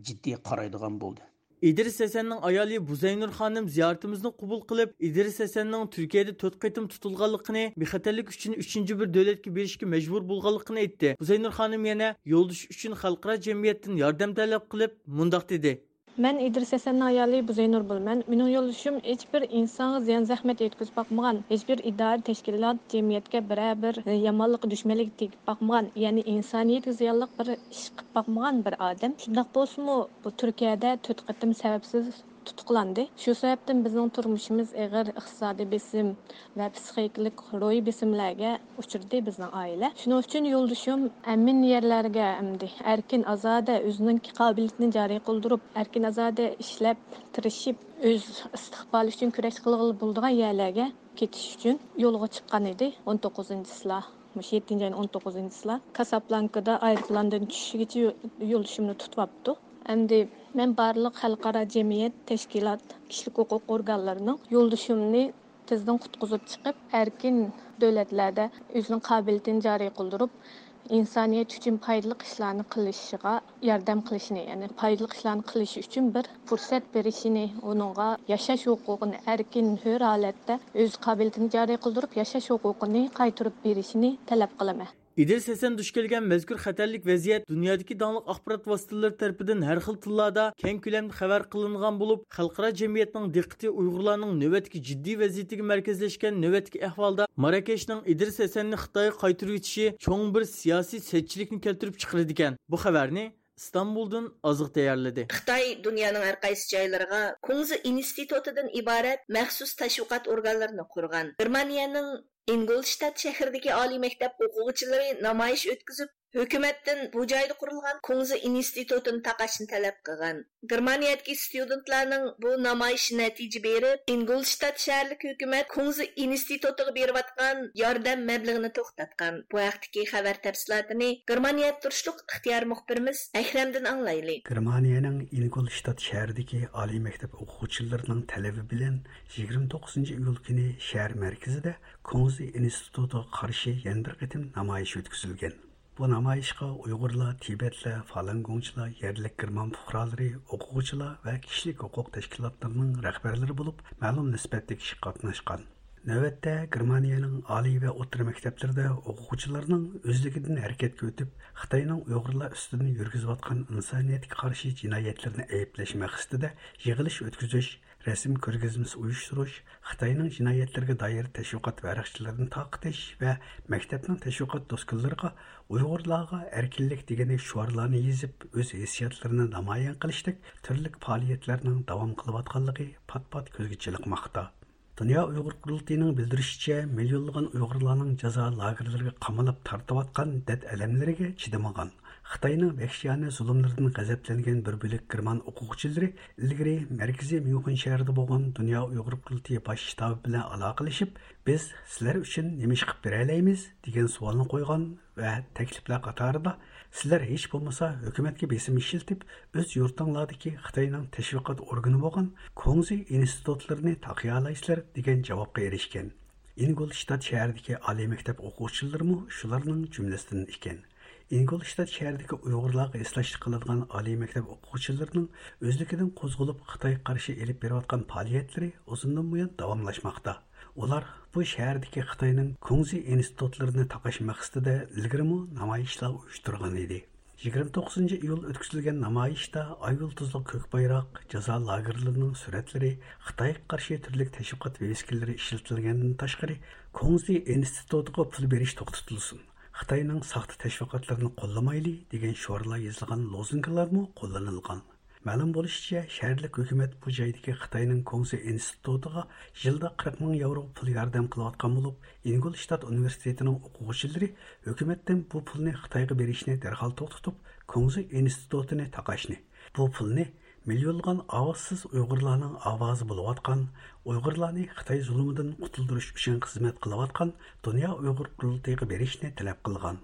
جىددىي قارايدىغان بولدى. ئىدرىس ھەسەننىڭ ئايالى بۇزەينۇر خانىم زىيارىتىمىزنى قوبۇل قىلىپ، ئىدرىس ھەسەننىڭ تۈركىيەدە تۆت قېتىم تۇتۇلغانلىقىنى، بىخەتەرلىك ئۈچۈن ئۈچىنچى بىر دۆلەتكە بېرىشكە مەجبۇر بولغانلىقىنى ئېيتتى. بۇزەينۇر خانىم يەنە يولدىشى ئۈچۈن خەلقئارا جەمئىيەتتىن ياردەم تەلەپ قىلىپ، مۇنداق دېدى. مەن ئىدرىس ھەسەننىڭ ئايالى بۇزەينۇر بولىمەن. مېنىڭ يولدىشىم ھېچبىر ئىنسانغا زىيان زەخمەت يەتكۈزۈپ باقمىغان، ھېچبىر ئىدارە، تەشكىلات، جەمئىيەتكە بىرەر بىر يامانلىق، دۈشمەنلىك تېگىپ باقمىغان، يەنى ئىنسانىيەتكە زىيانلىق بىر ئىش قىلىپ باقمىغان بىر ئادەم. شۇنداق بولسىمۇ، بۇ تۈركىيەدە تۆت قېتىم سەۋەبسىز تۇتۇقلاندى. شۇ سەۋەبتىن بىزنىڭ تۇرمۇشىمىز ئېغىر ئىقتىسادىي بېسىم ۋە پسىخىكىلىق روھىي بېسىملەرگە ئۇچرىدى بىزنىڭ ئائىلە. شۇنىڭ ئۈچۈن يولدىشىم ئەمىن يەرلەرگە ئەمدى ئەركىن، ئازادە، ئۆزىنىڭ قابىلىيىتىنى جارى قىلدۇرۇپ، ئەركىن، ئازادە ئىشلەپ، تىرىشىپ، ئۆز ئىستىقبالى ئۈچۈن كۈرەش قىلغىلى بولىدىغان يەرلەرگە كېتىش ئۈچۈن يولغا چىققان ئىدى. ئون توققۇزىنچى چىسلا، مۇشۇ يەتتىنچى ئاينىڭ ئون توققۇزىنچى چىسلا كاسابلانكىدا ئايروپىلاندىن چۈشۈشىگىچە يو-، يولدىشىمنى تۇتۇۋاپتۇ. ئەمدى مەن بارلىق خەلقئارا جەمئىيەت، تەشكىلات، كىشىلىك ھوقۇق ئورگانلىرىنىڭ يولدىشىمنى تېزدىن قۇتقۇزۇپ چىقىپ، ئەركىن دۆلەتلەردە ئۆزىنىڭ قابىلىيىتىنى جارى قىلدۇرۇپ، ئىنسانىيەت ئۈچۈن پايدىلىق ئىشلارنى قىلىشىغا ياردەم قىلىشىنى، يەنى پايدىلىق ئىشلارنى قىلىشى ئۈچۈن بىر پۇرسەت بېرىشىنى، ئۇنىڭغا ياشاش ھوقۇقىنى، ئەركىن، ھۆر ھالەتتە ئۆز قابىلىيىتىنى جارى قىلدۇرۇپ ياشاش ھوقۇقىنى قايتۇرۇپ بېرىشىنى تەلەپ قىلىمەن. ئىدرىس ھەسەن دۇچ كەلگەن مەزكۇر خەتەرلىك ۋەزىيەت دۇنيادىكى داڭلىق ئاخبارات ۋاسىتىلىرى تەرىپىدىن ھەر خىل تىللاردا كەڭ كۆلەمدە خەۋەر قىلىنغان بولۇپ، خەلقئارا جەمئىيەتنىڭ دىققىتى ئۇيغۇرلارنىڭ نۆۋەتتىكى جىددىي ۋەزىيىتىگە مەركەزلەشكەن نۆۋەتتىكى ئەھۋالدا ماراكەشنىڭ ئىدرىس ھەسەننى خىتايغا قايتۇرۇۋېتىشى چوڭ بىر سىياسىي سەتچىلىكنى كەلتۈرۈپ چىقىرىدىكەن. بۇ خەۋەرنى ئىستانبۇلدىن ئازىق تەييارلىدى. خىتاي دۇنيانىڭ ھەر قايسى جايلىرىغا كۇڭزى ئىنستىتۇتىدىن ئىبارەت مەخسۇس تەشۋىقات ئورگانلىرىنى قۇرغان. گېرمانىيەنىڭ ئىنگولشتات شەھىرىدىكى ئالىي مەكتەپ ئوقۇغۇچىلىرى نامايىش ئۆتكۈزۈپ، ھۆكۈمەتتىن بۇ جايدا قۇرۇلغان كۇڭزى ئىنستىتۇتىنى تاقاشنى تەلەپ قىلغان. گېرمانىيەدىكى ستۇدېنتلارنىڭ بۇ نامايىشى نەتىجە بېرىپ، ئىنگولشتات شەھەرلىك ھۆكۈمەت كۇڭزى ئىنستىتۇتىغا بېرىۋاتقان ياردەم مەبلىغىنى توختاتقان. بۇ ھەقتىكى خەۋەر تەپسىلاتىنى گېرمانىيەدە تۇرۇشلۇق ئىختىيار مۇخبىرىمىز ئەكرەمدىن ئاڭلايلى. گېرمانىيەنىڭ ئىنگولشتات شەھىرىدىكى ئالىي مەكتەپ ئوقۇغۇچىلىرىنىڭ تەلىپى بىلەن يىگىرمە توققۇزىنچى ئىيۇل كۈنى شەھەر مەركىزىدە كۇڭزى ئىنستىتۇتىغا قارشى يەنە بىر قېتىم نامايىش ئۆتكۈزۈلگەن. بۇ نامايىشقا ئۇيغۇرلار، تىبەتلەر، فالۇنگوڭچىلار، يەرلىك گېرمان پۇقرالىرى، ئوقۇغۇچىلار ۋە كىشىلىك ھوقۇق تەشكىلاتلىرىنىڭ رەھبەرلىرى بولۇپ، مەلۇم نىسبەتتە كىشى قاتناشقان. نۆۋەتتە گېرمانىيەنىڭ ئالىي ۋە ئوتتۇرا مەكتەپلىرىدە ئوقۇغۇچىلارنىڭ ئۆزلۈكىدىن ھەرىكەتكە ئۆتۈپ، خىتاينىڭ ئۇيغۇرلار ئۈستىدىن يۈرگۈزۈۋاتقان ئىنسانىيەتكە قارشى جىنايەتلىرىنى ئەيىبلەش مەقسىتىدە يىغىلىش ئۆتكۈزۈش، رەسىم كۆرگەزمىسى ئۇيۇشتۇرۇش، خىتاينىڭ جىنايەتلىرىگە دائىر تەشۋىقات ۋەرەقچىلىرىنى تارقىتىش ۋە مەكتەپنىڭ تەشۋىقات دوسكىلىرىغا ئۇيغۇرلارغا ئەركىنلىك دېگەندەك شوئارلارنى يېزىپ، ئۆز ھېسسىياتلىرىنى نامايان قىلىشتەك تۈرلۈك پائالىيەتلەرنىڭ داۋام قىلىۋاتقانلىقى پات-پات كۆزگە چېلىقماقتا. دۇنيا ئۇيغۇر قۇرۇلتىيىنىڭ بىلدۈرۈشىچە، مىليونلىغان ئۇيغۇرلارنىڭ جازا لاگېرلىرىغا قامىلىپ تارتىۋاتقان دەرد-ئەلەملىرىگە چىدىمىغان، خىتاينىڭ ۋەھشىيانە زۇلۇملىرىدىن غەزەپلەنگەن بىر بۆلەك گېرمان ئوقۇغۇچىلىرى ئىلگىرى مەركىزىي ميۇنخېن شەھىرىدە بولغان دۇنيا ئۇيغۇر قۇرۇلتىيى باش شتابى بىلەن ئالاقىلىشىپ، بىز سىلەر ئۈچۈن نېمە ئىش قىلىپ بېرەلەيمىز؟ دېگەن سوئالنى قويغان ۋە تەكلىپلەر قاتارىدا، سىلەر ھېچ بولمىسا ھۆكۈمەتكە بېسىم ئىشلىتىپ، ئۆز يۇرتۇڭلاردىكى خىتاينىڭ تەشۋىقات ئورگىنى بولغان كۇڭزى ئىنستىتۇتلىرىنى تاقىيالايسىلەر، دېگەن جاۋابقا ئېرىشكەن. ئىنگولشتات شەھىرىدىكى ئالىي مەكتەپ ئوقۇغۇچىلىرىمۇ شۇلارنىڭ جۈملىسىدىن ئىكەن. ئىنگولشتات شەھىرىدىكى ئۇيغۇرلارغا ھېسداشلىق قىلىدىغان ئالىي مەكتەپ ئوقۇغۇچىلىرىنىڭ ئۆزلۈكىدىن قوزغىلىپ خىتايغا قارشى ئېلىپ بېرىۋاتقان پائالىيەتلىرى ئۇزۇندىن بۇيان داۋاملاشماقتا. ئۇلار بۇ شەھەردىكى خىتاينىڭ كۇڭزى ئىنستىتۇتلىرىنى تاقاش مەقسىتىدە ئىلگىرىمۇ نامايىشلار ئۇيۇشتۇرغان ئىدى. يىگىرمە توققۇزىنچى ئىيۇل ئۆتكۈزۈلگەن نامايىشتا ئاي يۇلتۇزلۇق كۆك بايراق، جازا لاگېرلىرىنىڭ سۈرەتلىرى، خىتايغا قارشى تۈرلۈك تەشۋىقات ۋىۋىسكىلىرى ئىشلىتىلگەندىن تاشقىرى، كۇڭزى ئىنستىتۇتىغا پۇل بېرىش توختىتىلسۇن، خىتاينىڭ ساختا تەشۋىقاتلىرىنى قوللىمايلى دېگەن شوئارلار يېزىلغان لوزۇنكىلارمۇ قوللىنىلغان. مەلۇم بولۇشىچە، شەھەرلىك ھۆكۈمەت بۇ جايدىكى خىتاينىڭ كۇڭزى ئىنستىتۇتىغا يىلدا قىرىق مىڭ ياۋرو پۇل ياردەم قىلىۋاتقان بولۇپ، ئىنگولشتات ئۇنىۋېرسىتېتىنىڭ ئوقۇغۇچىلىرى ھۆكۈمەتتىن بۇ پۇلنى خىتايغا بېرىشنى دەرھال توختىتىپ، كۇڭزى ئىنستىتۇتىنى تاقاشنى، بۇ پۇلنى مىليونلىغان ئاۋازسىز ئۇيغۇرلارنىڭ ئاۋازى بولۇۋاتقان، ئۇيغۇرلارنى خىتاي زۇلۇمىدىن قۇتۇلدۇرۇش ئۈچۈن خىزمەت قىلىۋاتقان دۇنيا ئۇيغۇر قۇرۇلتىيىغا بېرىشنى تەلەپ قىلغان.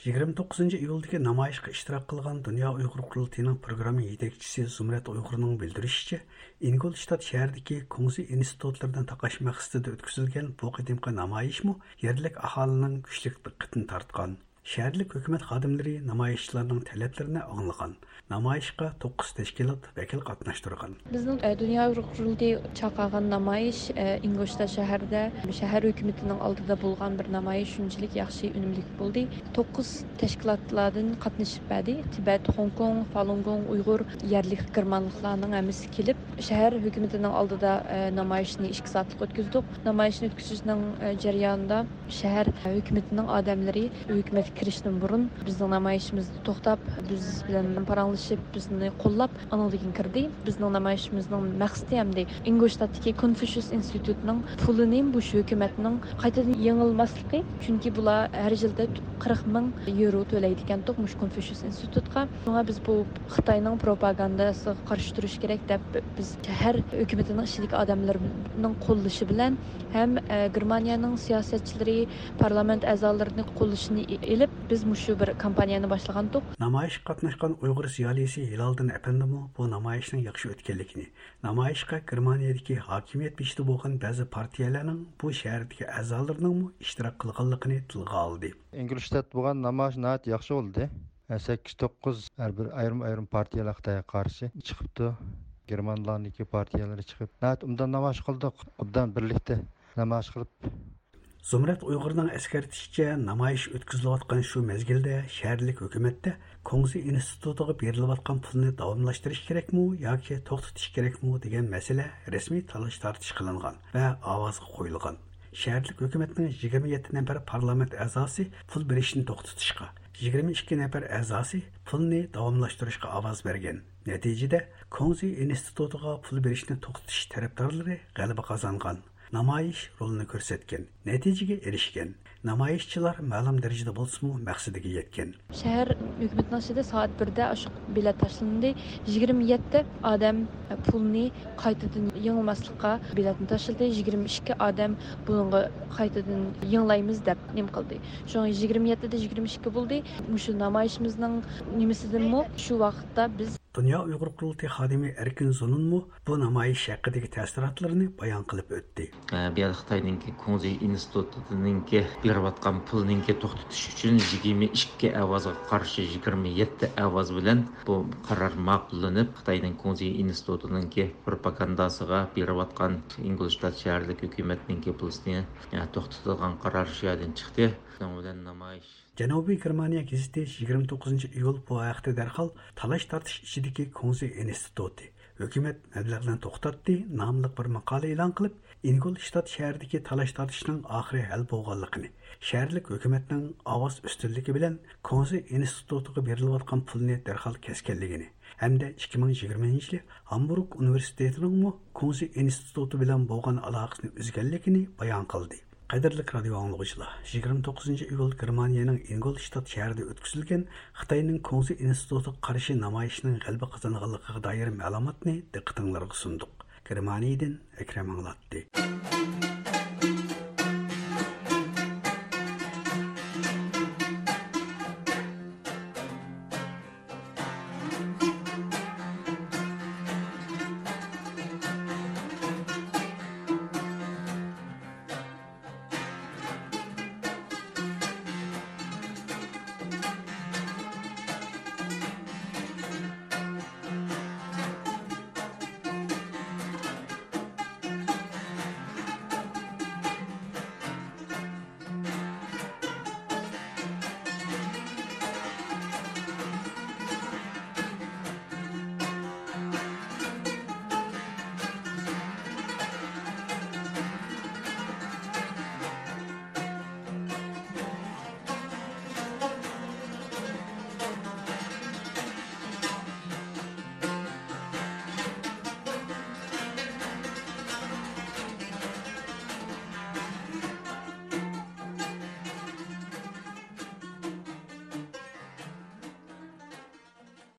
يىگىرمە توققۇزىنچى ئىيۇلدىكى نامايىشقا ئىشتىراك قىلغان دۇنيا ئۇيغۇر قۇرۇلتىيىنىڭ پروگرامما يېتەكچىسى زۇمرەت ئۇيغۇرنىڭ بىلدۈرۈشىچە، ئىنگولشتات شەھىرىدىكى كۇڭزى ئىنستىتۇتلىرىنى تاقاش مەقسىتىدە ئۆتكۈزۈلگەن بۇ قېتىمقى نامايىشمۇ يەرلىك ئاھالىنىڭ كۈچلۈك دىققىتىنى تارتقان. شەھەرلىك ھۆكۈمەت خادىملىرى نامايىشچىلارنىڭ تەلەپلىرىنى ئاڭلىغان. نامايىشقا توققۇز تەشكىلات ۋەكىل قاتناشتۇرغان. بىزنىڭ، ئە، دۇنيا ئۇيغۇر قۇرۇلتىيى چاقىرغان نامايىش، ئە، ئىنگولشتات شەھىرىدە شەھەر ھۆكۈمىتىنىڭ ئالدىدا بولغان بىر نامايىش شۇنچىلىك ياخشى ئۈنۈملۈك بولدى. توققۇز تەشكىلاتلاردىن قاتنىشىپ بەردى. تىبەت، خوڭكوڭ، فالۇنگوڭ، ئۇيغۇر يەرلىك گېرمانلىقلارنىڭ ھەممىسى كېلىپ، شەھەر ھۆكۈمىتىنىڭ ئالدىدا، ئە، نامايىشنى ئىككى سائەتلىك ئۆتكۈزدۇق. نامايىشنى ئۆتكۈزۈشنىڭ، ئە، جەريانىدا شەھەر ھۆكۈمىتىنىڭ ئادەملىرى ھۆكۈمەتكە كىرىشتىن بۇرۇن بىزنىڭ نامايىشىمىزدا توختاپ، بىز بىلەن پاراڭلىشىپ، بىزنى قوللاپ، ئانىڭدىن كېيىن كىردى. بىزنىڭ نامايىشىمىزنىڭ مەقسىتى ھەمدە ئىنگولشتاتتىكى كونفۇشيۇس ئىنستىتۇتىنىڭ پۇلىنى مۇشۇ ھۆكۈمەتنىڭ قايتىدىن يېڭىلماسلىقى، چۈنكى بۇلار ھەر يىلدا قىرىق مىڭ يورو تۆلەيدىكەنتۇق مۇشۇ كونفۇشيۇس ئىنستىتۇتقا. شۇڭا بىز بۇ خىتاينىڭ پروپاگاندىسىغا قارشى تۇرۇش كېرەك دەپ، بىز شەھەر ھۆكۈمىتىنىڭ ئىچىدىكى ئادەملىرىنىڭ قوللىشى بىلەن ھەم، ئە، گېرمانىيەنىڭ سىياسەتچىلىرى، پارلامېنت ئەزالىرىنى قوللىشىنى ئى-، ئېلىپ، بىز مۇشۇ بىر كامپانىيەنى باشلىغانتۇق. نامايىشقا قاتناشقان ئۇيغۇر زىيالىيسى ھىلالدىن ئەپەندىمۇ بۇ نامايىشنىڭ ياخشى ئۆتكەنلىكىنى، نامايىشقا گېرمانىيەدىكى ھاكىمىيەت بېشىدا بولغان بەزى پارتىيەلەرنىڭ بۇ شەھەردىكى ئەزالىرىنىڭمۇ ئىشتىراك قىلغانلىقىنى تىلغا ئالدى. ئىنگلىشتات بولغان نامايىش ناھايىتى ياخشى بولدى. سەككىز، توققۇز ھەر بىر ئايرىم-ئايرىم پارتىيەلەر خىتايغا قارشى چىقىپتۇ. گېرمانلارنىڭكى پارتىيەلىرى چىقىپ، ناھايىتى ئوبدان نامايىش قىلدۇق. ئوبدان بىرلىكتە نامايىش قىلىپ. زۇمرەت ئۇيغۇرنىڭ ئەسكەرتىشىچە، نامايىش ئۆتكۈزۈلۈۋاتقان شۇ مەزگىلدە شەھەرلىك ھۆكۈمەتتە كۇڭزى ئىنستىتۇتىغا بېرىلىۋاتقان پۇلنى داۋاملاشتۇرۇش كېرەكمۇ ياكى توختىتىش كېرەكمۇ دېگەن مەسىلە رەسمىي تالاش-تارتىش قىلىنغان ۋە ئاۋازغا قويۇلغان. شەھەرلىك ھۆكۈمەتنىڭ يىگىرمە يەتتە نەپەر پارلامېنت ئەزاسى پۇل بېرىشنى توختىتىشقا، يىگىرمە ئىككى نەپەر ئەزاسى پۇلنى داۋاملاشتۇرۇشقا ئاۋاز بەرگەن. نەتىجىدە، كۇڭزى ئىنستىتۇتىغا پۇل بېرىشنى توختىتىش تەرەپدارلىرى غەلىبە قازانغان. نامايىش رولىنى كۆرسەتكەن، نەتىجىگە ئېرىشكەن. نامايىشچىلار مەلۇم دەرىجىدە بولسىمۇ مەقسىتىگە يەتكەن. شەھەر ھۆكۈمىتىنىڭ ئىچىدە سائەت بىردە ئاشۇ بېلەت تاشلىندى. يىگىرمە يەتتە ئادەم پۇلنى قايتىدىن يېڭىلماسلىققا بېلەتنى تاشلىدى. يىگىرمە ئىككى ئادەم بۇنىڭغا قايتىدىن يېڭىلايمىز دەپ نېمە قىلدى. شۇڭا يىگىرمە يەتتىدە يىگىرمە ئىككى بولدى. مۇشۇ نامايىشىمىزنىڭ نېمىسىدىنمۇ شۇ ۋاقىتتا بىز دۇنيا ئۇيغۇر قۇرۇلتىيى خادىمى ئەركىن زۇنۇنمۇ بۇ نامايىش ھەققىدىكى تەسىراتلىرىنى بايان قىلىپ ئۆتتى. ئە، بۇ يەردە خىتاينىڭكى كۇڭزى ئىنستىتۇتىنىڭكى بېرىۋاتقان پۇلنىڭكى توختىتىش ئۈچۈن يىگىرمە ئىككى ئاۋازغا قارشى يىگىرمە يەتتە ئاۋاز بىلەن بۇ قارار ماقۇللىنىپ، خىتاينىڭ كۇڭزى ئىنستىتۇتىنىڭكى پروپاگانداسىغا بېرىۋاتقان ئىنگلىشتات شەھەرلىك ھۆكۈمەتنىڭكى پۇلىسىنى، ئە، توختىتىدىغان قارار شۇ يەردىن چىقتى. شۇنىڭ بىلەن نامايىش جەنۇبىي گېرمانىيە گېزىتى يىگىرمە توققۇزىنچى ئىيۇل بۇ ھەقتە دەرھال تالاش-تارتىش ئىچىدىكى كۇڭزى ئىنستىتۇتى ھۆكۈمەت مەبلەغنى توختاتتى ناملىق بىر ماقالە ئېلان قىلىپ، ئىنگولشتات شەھىرىدىكى تالاش-تارتىشنىڭ ئاخىرى ھەل بولغانلىقىنى، شەھەرلىك ھۆكۈمەتنىڭ ئاۋاز ئۈستۈنلۈكى بىلەن كۇڭزى ئىنستىتۇتىغا بېرىلىۋاتقان پۇلنى دەرھال كەسكەنلىكىنى ھەمدە ئىككى مىڭ يىگىرمىنچى يىلى ھامبۇرگ ئۇنىۋېرسىتېتىنىڭمۇ كۇڭزى ئىنستىتۇتى بىلەن بولغان ئالاقىسىنى ئۈزگەنلىكىنى بايان قىلدى. قەدىرلىك رادىيو ئاڭلىغۇچىلار، يىگىرمە توققۇزىنچى ئىيۇل گېرمانىيەنىڭ ئىنگولشتات شەھىرىدە ئۆتكۈزۈلگەن خىتاينىڭ كۇڭزى ئىنستىتۇتىغا قارشى نامايىشنىڭ غەلىبە قازانغانلىقىغا دائىر مەلۇماتنى دىققىتىڭلارغا سۇندۇق. گېرمانىيەدىن ئەكرەم ئاڭلاتتى.